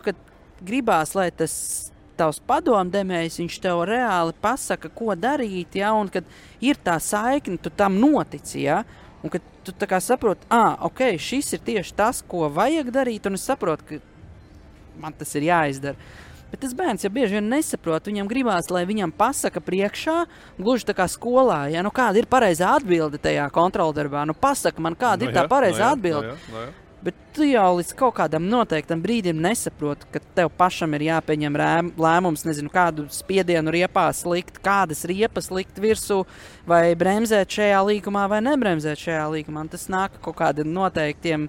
J: kad gribās, lai tas tavs padomdemējs, viņš tev reāli pasaka, ko darīt, un kad ir tā saikne, tu tam notici, un kad tu tā kā saproti, ok, šis ir tieši tas, ko vajag darīt, un es saprotu, ka man tas ir jāizdara. Bet tas bērns jau bieži vien nesaprot, viņam gribās, lai viņam pasaka priekšā, gluži tā kā skolā, kāda ir pareizā atbilde tajā kontroldarbā, pasaka man, kāda ir tā pareizā atbilde. Bet tu jau līdz kaut kādam noteiktam brīdim nesaproti, ka tev pašam ir jāpieņem lēmums, nezinu, kādu spiedienu riepās likt, kādas riepas likt virsū, vai bremzēt šajā līkumā, vai nebremzēt šajā līkumā. Tas nāk kaut kādiem noteiktiem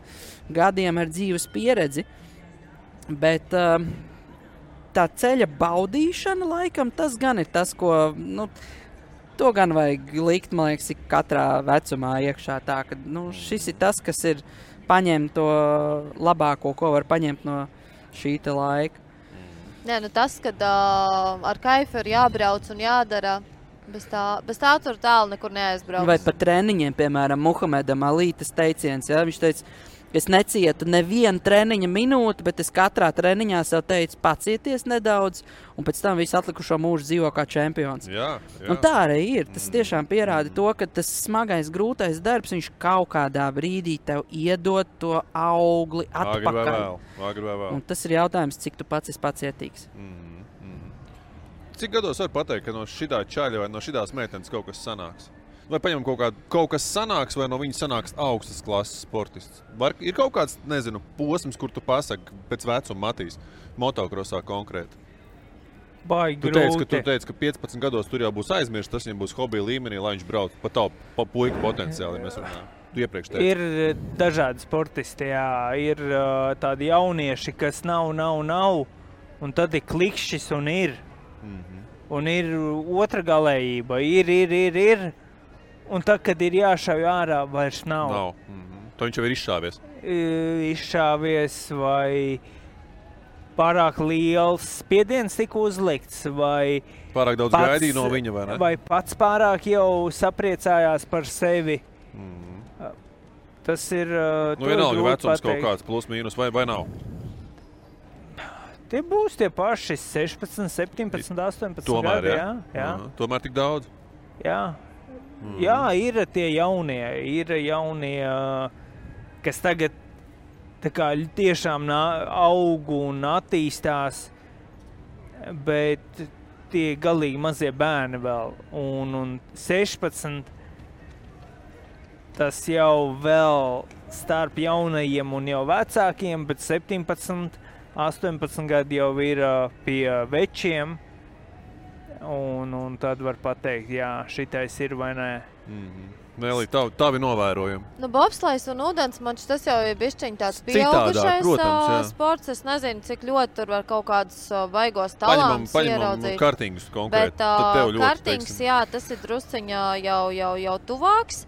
J: gadiem ar dzīves pieredzi. Bet tā ceļa baudīšana laikam, tas gan ir tas, ko, to gan vajag likt, man liekas, katrā vecumā iekšā tā, ka, šis ir tas, kas ir paņemt to labāko, ko var paņemt no šī te laika.
F: Tas, kad ar kaifu ir jābrauc un jādara Bez tā tur tālu nekur neaizbrauks.
J: Vai par treniņiem, piemēram, Muhamedam Ali tas teiciens, ja? Viņš teica, es necietu nevienu treniņa minūti, bet es katrā treniņā sev teicu, pacieties nedaudz, un pēc tam visu atlikušo mūžu dzīvo kā čempions.
C: Jā.
J: Un tā arī ir. Tas tiešām pierāda to, ka tas smagais, grūtais darbs, viņš kaut kādā brīdī tev iedod to augli atpakaļ.
C: Agri vai vēl.
J: Un tas ir jautājums, cik tu pats esi pacietīgs.
C: Cik gados var pateikt, ka no šitā čaļa vai no šitās meitenes kaut kas sanāks? Vai paņem kaut kas sanāks, vai no viņa sanāks augstas klases sportists? Ir kaut kāds, nezinu, posms, kur tu pasaki pēc vecuma Matīs, motokrosā konkrēti?
D: Baigi
C: Tu
D: grūti.
C: teici, ka 15 gados tur jau būs aizmirst, tas viņam būs hobija līmenī, lai viņš brauc pa tavu puiku potenciāli, mēs runājam. Tu iepriekš teici.
D: Ir dažādi sportisti, jā. Ir tādi jaunieši, kas nav, un tad ir klikšķis un ir. Un ir otra galējība, ir. Un tad, kad ir jāšauj ārā, vairs nav.
C: To viņš jau ir izšāvies.
D: Izšāvies vai pārāk liels spiediens tika uzlikts, vai
C: Pārāk daudz gaidīja no viņa, vai ne?
D: Vai pats pārāk jau sapriecājās par sevi. Tas ir
C: vienalga vecums kaut kāds plus mīnus, vai nav?
D: Tie būs tie paši 16, 17, 18
C: Tomēr,
D: gadi. Jā.
C: Tomēr tik daudz?
D: Jā, ir tie jaunie, kas tagad tā kā tiešām aug un attīstās, bet tie galīgi mazie bērni vēl. Un 16, tas jau vēl starp jaunajiem un jau vecākiem, bet 17, 18 gadi jau ir pie večiem. Un tad var pateikt, jā, šitais ir vai nē.
C: Nelī, tavi novērojumi.
F: Bobslejs un ūdensmačs, tas jau ir bišķiņ tāds pieaugušais sports. Es nezinu, cik ļoti tur var kaut kādus baigos talantus ieraudzīt.
C: Paņemam kartingus konkrēti.
F: Bet kartings, jā, tas ir drusciņā jau tuvāks.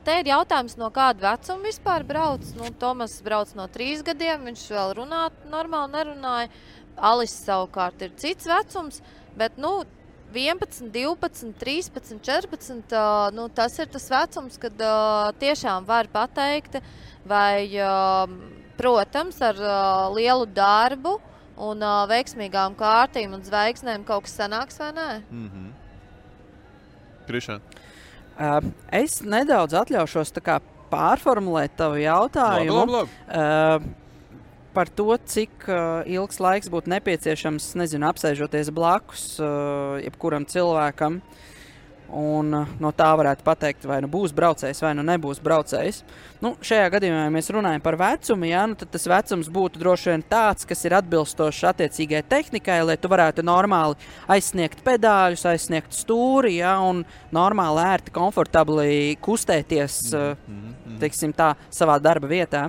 F: Te ir jautājums, no kāda vecuma vispār brauc. Tomas brauc no 3 gadiem, viņš vēl normāli nerunāja. Alis savukārt ir cits vecums. Bet, 11, 12, 13, 14, tas ir tas vecums, kad tiešām var pateikt, vai, protams, ar lielu darbu un veiksmīgām kārtīm un zvaigznēm kaut kas sanāks vai nē?
C: Krišān?
J: Es nedaudz atļaušos tā kā pārformulēt tavu jautājumu.
C: Labi.
J: Par to, cik ilgs laiks būtu nepieciešams, nezinu, apsēžoties blakus jebkuram cilvēkam. Un no tā varētu pateikt, vai būs braucējs, vai nebūs braucējs. Šajā gadījumā, ja mēs runājam par vecumu, tad tas vecums būtu droši vien tāds, kas ir atbilstošs attiecīgai tehnikai, lai tu varētu normāli aizsniegt pedāļus, aizsniegt stūri, un normāli ērti, komfortabli kustēties, teiksim tā, savā darba vietā.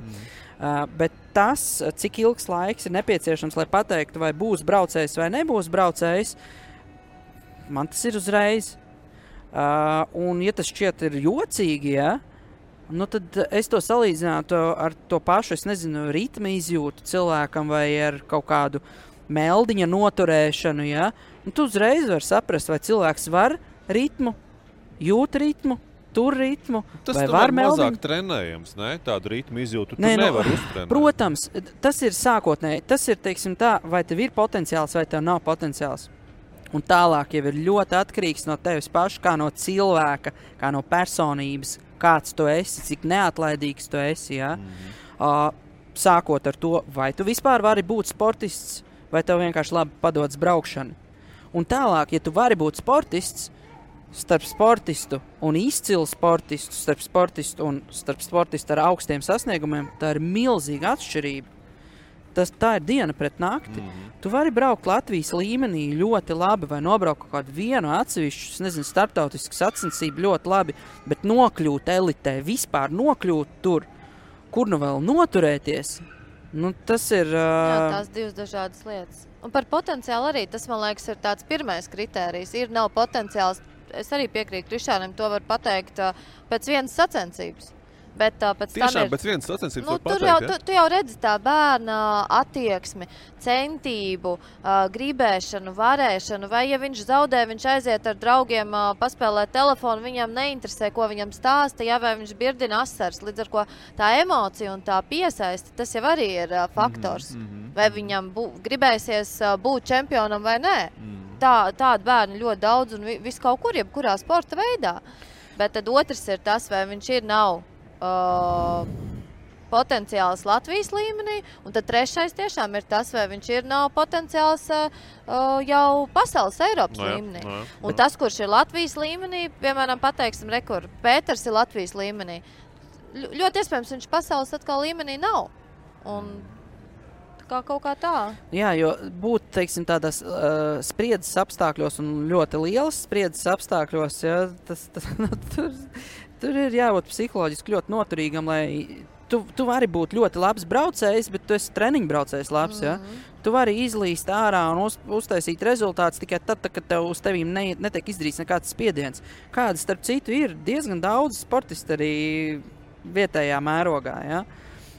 J: Bet tas, cik ilgs laiks ir nepieciešams, lai pateiktu, vai būs braucējs vai nebūs braucējs, man tas ir uzreiz. Un ja tas šķiet ir jocīgi, tad es to salīdzinātu ar to pašu, es nezinu, ritma izjūtu cilvēkam vai ar kaut kādu meldiņa noturēšanu, Tu uzreiz var saprast, vai cilvēks var ritmu, jūt ritmu, tur ritmu,
C: tas
J: vai var
C: mazāk trenējams, ne? Tādu ritmu izjūtu tu nevar uztrenēt.
J: Protams, tas ir sākotnēji. Tas ir, teiksim tā, vai tev ir potenciāls, vai tev nav potenciāls. Un tālāk jau ir ļoti atkarīgs no tevis paša, kā no cilvēka, kā no personības, kāds tu esi, cik neatlaidīgs tu esi, sākot ar to, vai tu vispār vari būt sportists, vai tev vienkārši labi padodas braukšana. Un tālāk, ja tu vari būt sportists, starp sportistu un izcilu sportistu, starp sportistu ar augstiem sasniegumiem, tā ir milzīga atšķirība. Tā ir diena pret nakti. Tu vari braukt Latvijas līmenī ļoti labi vai nobraukt kaut kādu vienu atsevišķu, nezinu, starptautisku sacensību ļoti labi, bet nokļūt elitē, vispār nokļūt tur, kur nu vēl noturēties, tas ir...
F: Jā, tās divas dažādas lietas. Un par potenciālu arī, tas, man liekas, ir tāds pirmais kritērijs. Nav potenciāls. Es arī piekrītu Krišānam, to var pateikt pēc vienas sacensības. Bet pēc tam
C: Tiešām
F: ir...
C: pēc vienas sacensības var
F: tur
C: pateikt,
F: jau, tu jau redzi tā bērna attieksmi, centību, gribēšanu, varēšanu, vai ja viņš zaudē, viņš aiziet ar draugiem paspēlēt telefonu, viņam neinteresē, ko viņam stāsta, ja, vai viņš birdina asars, līdz ar ko tā emocija un tā piesaisti, tas jau arī ir faktors. Vai viņam gribēsies būt čempionam vai nē. Tāda bērni ļoti daudz un viss kaut kur, jebkurā sporta veidā. Bet tad otrs ir tas, vai viņš nav potenciāls Latvijas līmenī, un tad trešais tiešām ir tas, vai viņš nav potenciāls jau pasaules Eiropas līmenī. Un tas, kurš ir Latvijas līmenī, piemēram, pateiksim, rekur, Pēters ir Latvijas līmenī. Ļoti iespējams, viņš pasaules atkal līmenī nav. Un kaut kā tā.
J: Jā, jo būt, teiksim, tādās spriedzes apstākļos un ļoti lielas spriedzes apstākļos, ja, tur ir jābūt psiholoģiski ļoti noturīgam, lai tu vari būt ļoti labs braucējs, bet tu esi treniņu braucējs labs, ja. Tu vari izlīst ārā un uztaisīt rezultātus tikai tad, kad tev uz tevīm netiek izdarīts nekāds spiediens. Kāda, starp citu, ir diezgan daudz sportisti arī vietējā mērogā, ja.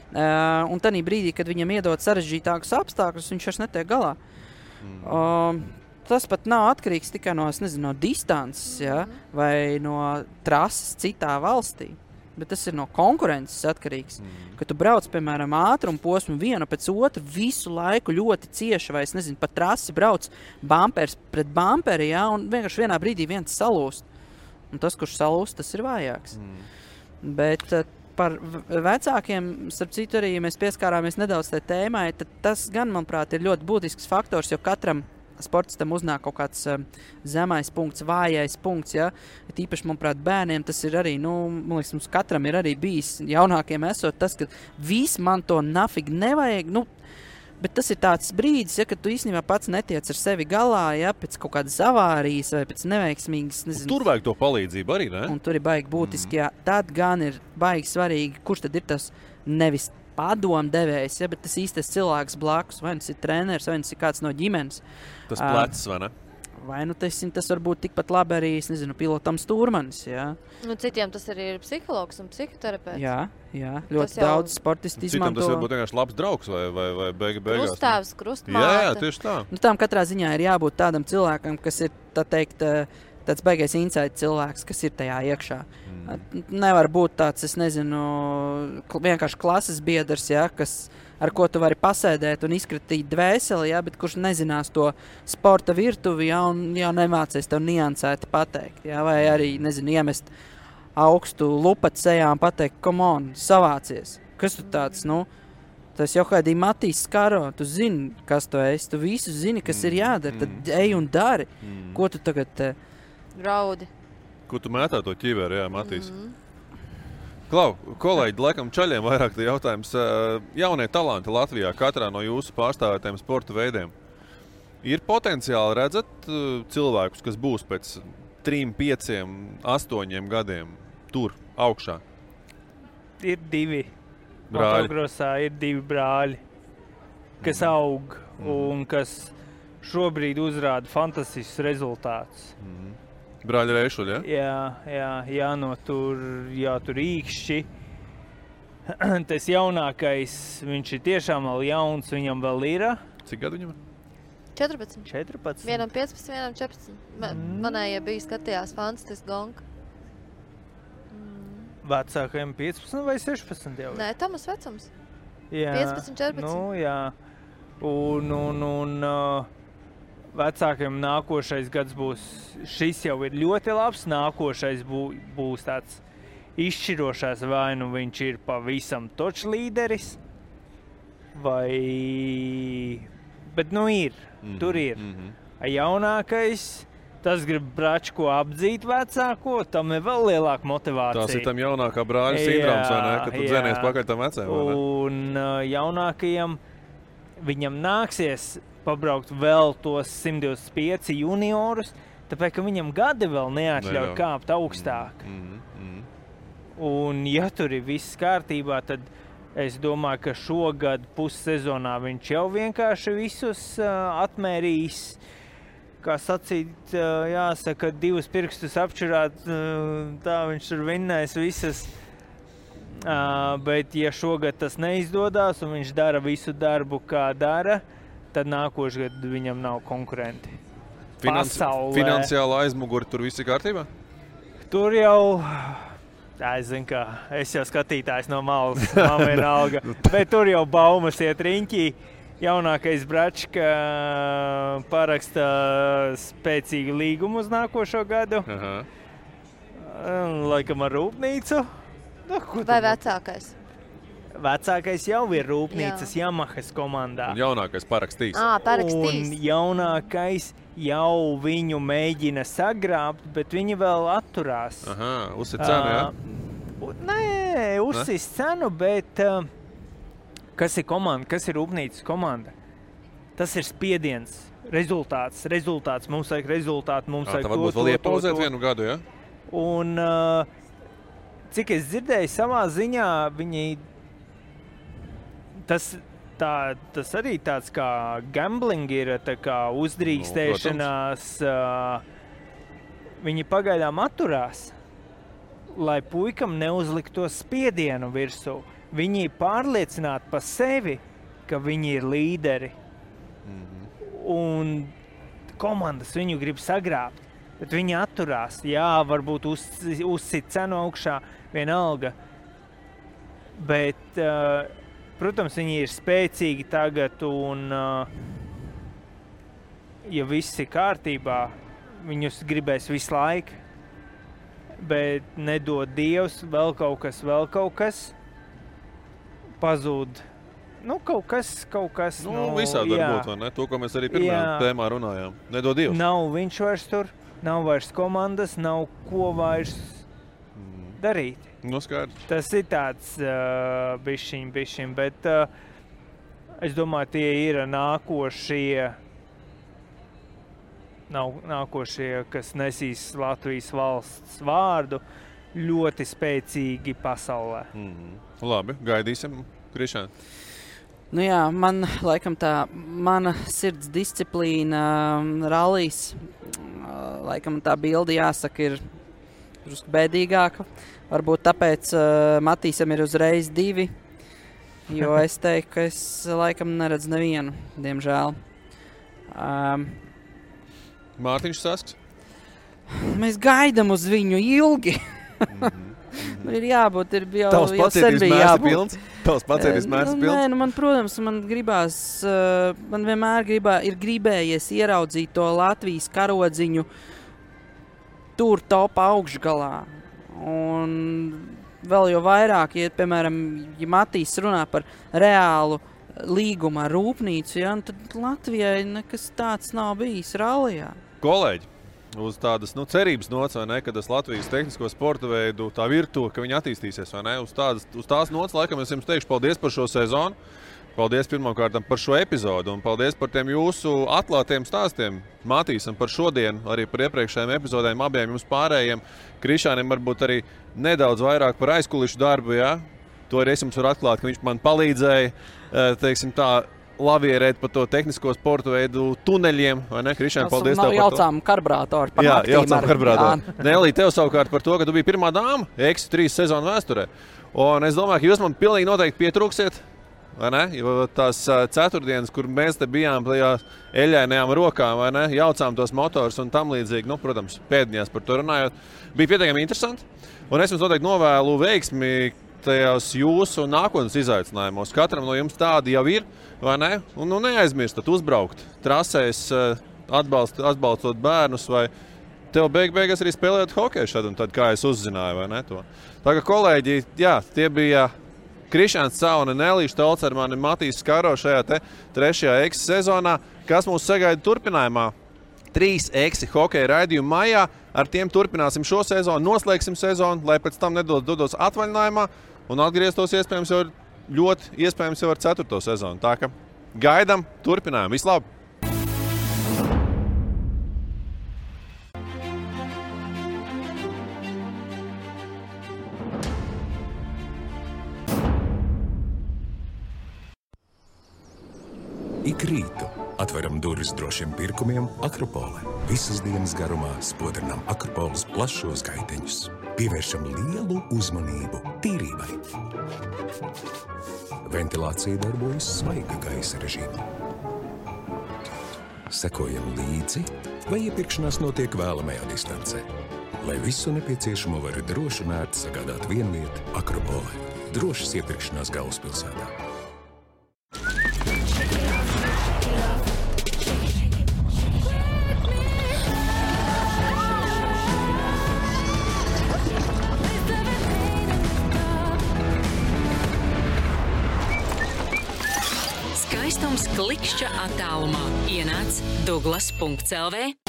J: Un tanī brīdī, kad viņam iedod sarežģītākus apstākļus, viņš vairs netiek galā. Tas pat nav atkarīgs tikai no distances, ja, vai no trases citā valstī, bet tas ir no konkurences atkarīgs. Kad tu brauc, piemēram, ātrumu posmu vienu pēc otru, visu laiku ļoti cieši, vai pa trasi brauc bumpers pret bumperi, ja, un vienkārši vienā brīdī viens salūst. Un tas, kurš salūst, tas ir vājāks. Bet par vecākiem, starp citu arī, ja mēs pieskārāmies nedaudz tai tēmai, tad tas gan, manuprāt, ir ļoti būtisks faktors, jo katram sportistam uznāk kaut kāds zemais punkts, vājais punkts, ja. Tīpaši, manuprāt, bērniem tas ir arī, man liekas, mums katram ir arī bijis jaunākiem esot tas, ka viss man to nafig nevajag, bet tas ir tāds brīdis, ja, kad tu īstenībā pats netiec ar sevi galā, ja, pēc kaut kādas avārijas vai pēc neveiksmīgas,
C: Tur vajag to palīdzību arī, ne?
J: Un tur ir baigi būtiski, jā. Tad gan ir baigi svarīgi, kurš tad ir tas nevis padomdevējs, ja, bet tas īstais cilvēks blakus, vai tas ir treneris, vai tas ir kāds no ģimenes.
C: Tas plecs, vai ne?
J: Vai tas var būt tikpat labi arī, pilotam stūrmanis, jā.
F: Citiem tas arī ir psihologs un psihoterapeits.
J: Jā, ļoti daudz sportisti izmanto.
C: Citam tas varbūt vienkārši labs draugs vai beigās.
F: Krustāvs, krustmāte.
C: Jā, tieši tā.
J: Tām katrā ziņā ir jābūt tādam cilvēkam, kas ir, tā teikt, tāds baigais insight cilvēks, kas ir tajā iekšā. Nevar būt tāds, vienkārši klases biedrs, ja, ar ko tu vari pasēdēt un izkratīt dvēseli, ja, bet kurš nezinās to sporta virtuvi, ja, un jau nemācies tev niansēti pateikt, ja, vai arī, iemest augstu lupatu sejā un pateikt, come on, savācies. Kas tu tāds, tas jau kādī Matīs Skaro, tu zini, kas tu esi, tu visu zini, kas ir jādara, tad ej un dari. Ko tu tagad...
F: Raudi.
C: Ko tu mētā to ķiveri, jā, Matīs? Klau, kolēģi, laikam čaļiem vairāk tie jautājums. Jaunie talanti Latvijā, katrā no jūsu pārstāvētiem sporta veidiem. Ir potenciāli redzat cilvēkus, kas būs pēc 3, 5, 8 gadiem tur, augšā?
D: Ir 2.
C: Brāļi.
D: Motogrosā ir 2 brāļi, kas aug un kas šobrīd uzrāda fantastiskus rezultātus.
C: Brāļi Reišuļi,
D: ja? Jā, tur īkšķi. Tas jaunākais, viņš ir tiešām vēl jauns, viņam vēl ir.
C: Cik gadu viņam ir?
F: 14. Vienam 15, vienam 14. Manējie bija skatījās fantastiski gonka.
D: Vecākajiem 15 vai 16 jau?
F: Nē, Tomas vecums.
D: Jā.
F: 15, 14.
D: Jā. Un vecākiem nākošais gads būs, šis jau ir ļoti labs, nākošais būs tāds izšķirošās, vai viņš ir pavisam točs līderis, vai... Bet ir, tur ir. Jaunākais, tas grib bračko apdzīt vecāko, tam ir vēl lielāka motivācija.
C: Tas ir tam jaunākā brāļa sindroms, vai ne? Kad tu dzēnies pakaļ tam vecēm, vai ne?
D: Un jaunākajam, viņam nāksies pabraukt vēl tos 125 juniorus, tāpēc, ka viņam gadi vēl neatļauj kāpt augstāk. Un, ja tur ir viss kārtībā, tad es domāju, ka šogad pussezonā viņš jau vienkārši visus atmērīs. Kā sacīt, jāsaka, 2 pirkstus apčurāt, tā viņš tur vinnēs visas Bet, ja šogad tas neizdodas un viņš dara visu darbu, kā dara, tad nākošais gads viņam nav konkurenti.
C: Finansiāla aizmuguri tur viss ir kārtībā?
D: Tur jau, es zinu, kā es jau skatītājs no malas, man vienalga, bet tur jau baumas iet riņķī. Jaunākais Bračka paraksta spēcīgu līgumu uz nākošo gadu. Laikam ar rūpnīcu.
F: Vai vecākais?
D: Vecākais jau ir rūpnīcas Yamahas komandā.
C: Un jaunākais parakstīs.
F: Parakstīs.
D: Un jaunākais jau viņu mēģina sagrābt, bet viņi vēl atturās.
C: Uzsit cenu, jā?
D: Nē, uzsit cenu, bet kas ir komanda, kas ir rūpnīcas komanda? Tas ir spiediens, rezultāts. Mums vajag rezultātu, mums vajag
C: to. Tā varbūt vēl iepauzēt vienu gadu, jā?
D: Un cik es dzirdēju savā ziņā, viņi tas arī tāds kā gambling ir, tā kā uzdrīkstēšanās. Viņi pagaidām atturās, lai puikam neuzlikto spiedienu virsū. Viņi ir pārliecināti par sevi, ka viņi ir līderi. Un komandas viņu grib sagrābt, bet viņi atturās. Jā, varbūt uzsit cenu augšā, vienalga. Bet, protams, viņi ir spēcīgi tagad un, ja viss ir kārtībā, viņus gribēs visu laiku. Bet nedod Dievs, vēl kaut kas. Pazūd. Kaut kas.
C: Visādi var būt, vai ne? To, ko mēs arī pirmajā tēmā runājām. Nedod Dievs.
D: Nav viņš vairs tur, nav vairs komandas, nav ko vairs darīt.
C: Skaidrs.
D: Tas ir tāds bišķiņ, bet es domāju, tie ir nākošie, kas nesīs Latvijas valsts vārdu, ļoti spēcīgi pasaulē.
C: Labi, gaidīsim, Krišāni.
J: Man laikam mana sirds disciplīna rallijs, laikam tā bilde jāsaka ir drusku bēdīgāka. Varbūt tāpēc Matīsam ir uzreiz 2, jo es teiktu, ka es laikam neredzu nevienu, diemžēl.
C: Mārtiņš Sasks?
J: Mēs gaidām uz viņu ilgi. Ir jābūt, jau sen bija jābūt.
C: Tavs pacieties mērs pilns?
J: Man, protams, man vienmēr ir gribējies ieraudzīt to Latvijas karodziņu tur topā augšgalā. Un vēl jau vairāk, ja, piemēram, ja Matīs runā par reālu līgumu ar rūpnīcu, tad Latvijai nekas tāds nav bijis rallijā.
C: Kolēģi, uz tādas cerības nots, vai ne, ka tas Latvijas tehnisko sporta veidu, tā virtuve, ka viņi attīstīsies, vai ne, uz tās nots, laikam es jums teikšu paldies par šo sezonu, paldies pirmkārt par šo epizodu un paldies par tiem jūsu atklātiem stāstiem. Matīsam par šodienu, arī par iepriekšējiem epizodēm, abiem jums pārējiem. Krišānim varbūt arī nedaudz vairāk par aizkulišu darbu, jā? To arī es jums varu atklāt, ka viņš man palīdzēja, teiksim tā, lavierēt pa to tehnisko sporta veidu tuneļiem, vai ne? Krišāni, paldies tev par to.
J: Jaucām karburātoru par naktīm.
C: Jā, jaucām karburātoru. Nelī, tev savukārt par to, ka tu biji pirmā dāma X3 sezonu vēsturē. Un es domāju, ka jūs man pilnīgi noteikti pietrūksiet, vai ne? Jo tās ceturtdienas, kur mēs te bijām tajās eļainajām rokām, vai ne? Jaucām tos motors un tam līdzīgi, protams, pēdiņās par to runājot. Bija pietiekami interesanti. Un es jums noteikti novēlu veiksmi tajās jūsu nākotnes izaicinājumos. Katram no jums tādi jau ir, vai ne? Un neaizmirstat uzbraukt trasēs, atbalstot bērnus, vai tev beigās arī spēlēt hokeju šad un tad, kā es uzzināju, vai ne to. Tā kā kolēģi, jā, tie bija Krišāns Cauna, Nelīša Tolcermani, Matīs Skaro šajā te 3. X sezonā. Kas mūs sagaida turpinājumā? 3 X hokeja raidījumu maijā. Ar tiem turpināsim šo sezonu, noslēgsim sezonu, lai pēc tam dodos atvaļinājumā un atgrieztos iespējams jau ar 4. sezonu. Tā ka gaidam, turpinājam. Vislabāk!
A: Ik rītu atveram durvis drošiem pirkumiem Akropole. Visas dienas garumā spodrinām Akropoles plašos gaiteņus. pievēršam lielu uzmanību tīrībai. Ventilācija darbojas svaiga gaisa režīmā. Sekojam līdzi, vai iepirkšanās notiek vēlamajā distancē. Lai visu nepieciešamo var droši un ērti sagādāt vienvieta Akropolē. Drošas iepirkšanās galvaspilsētā.
B: Skaistums klikšķa attālumā. Ienāc Douglas.lv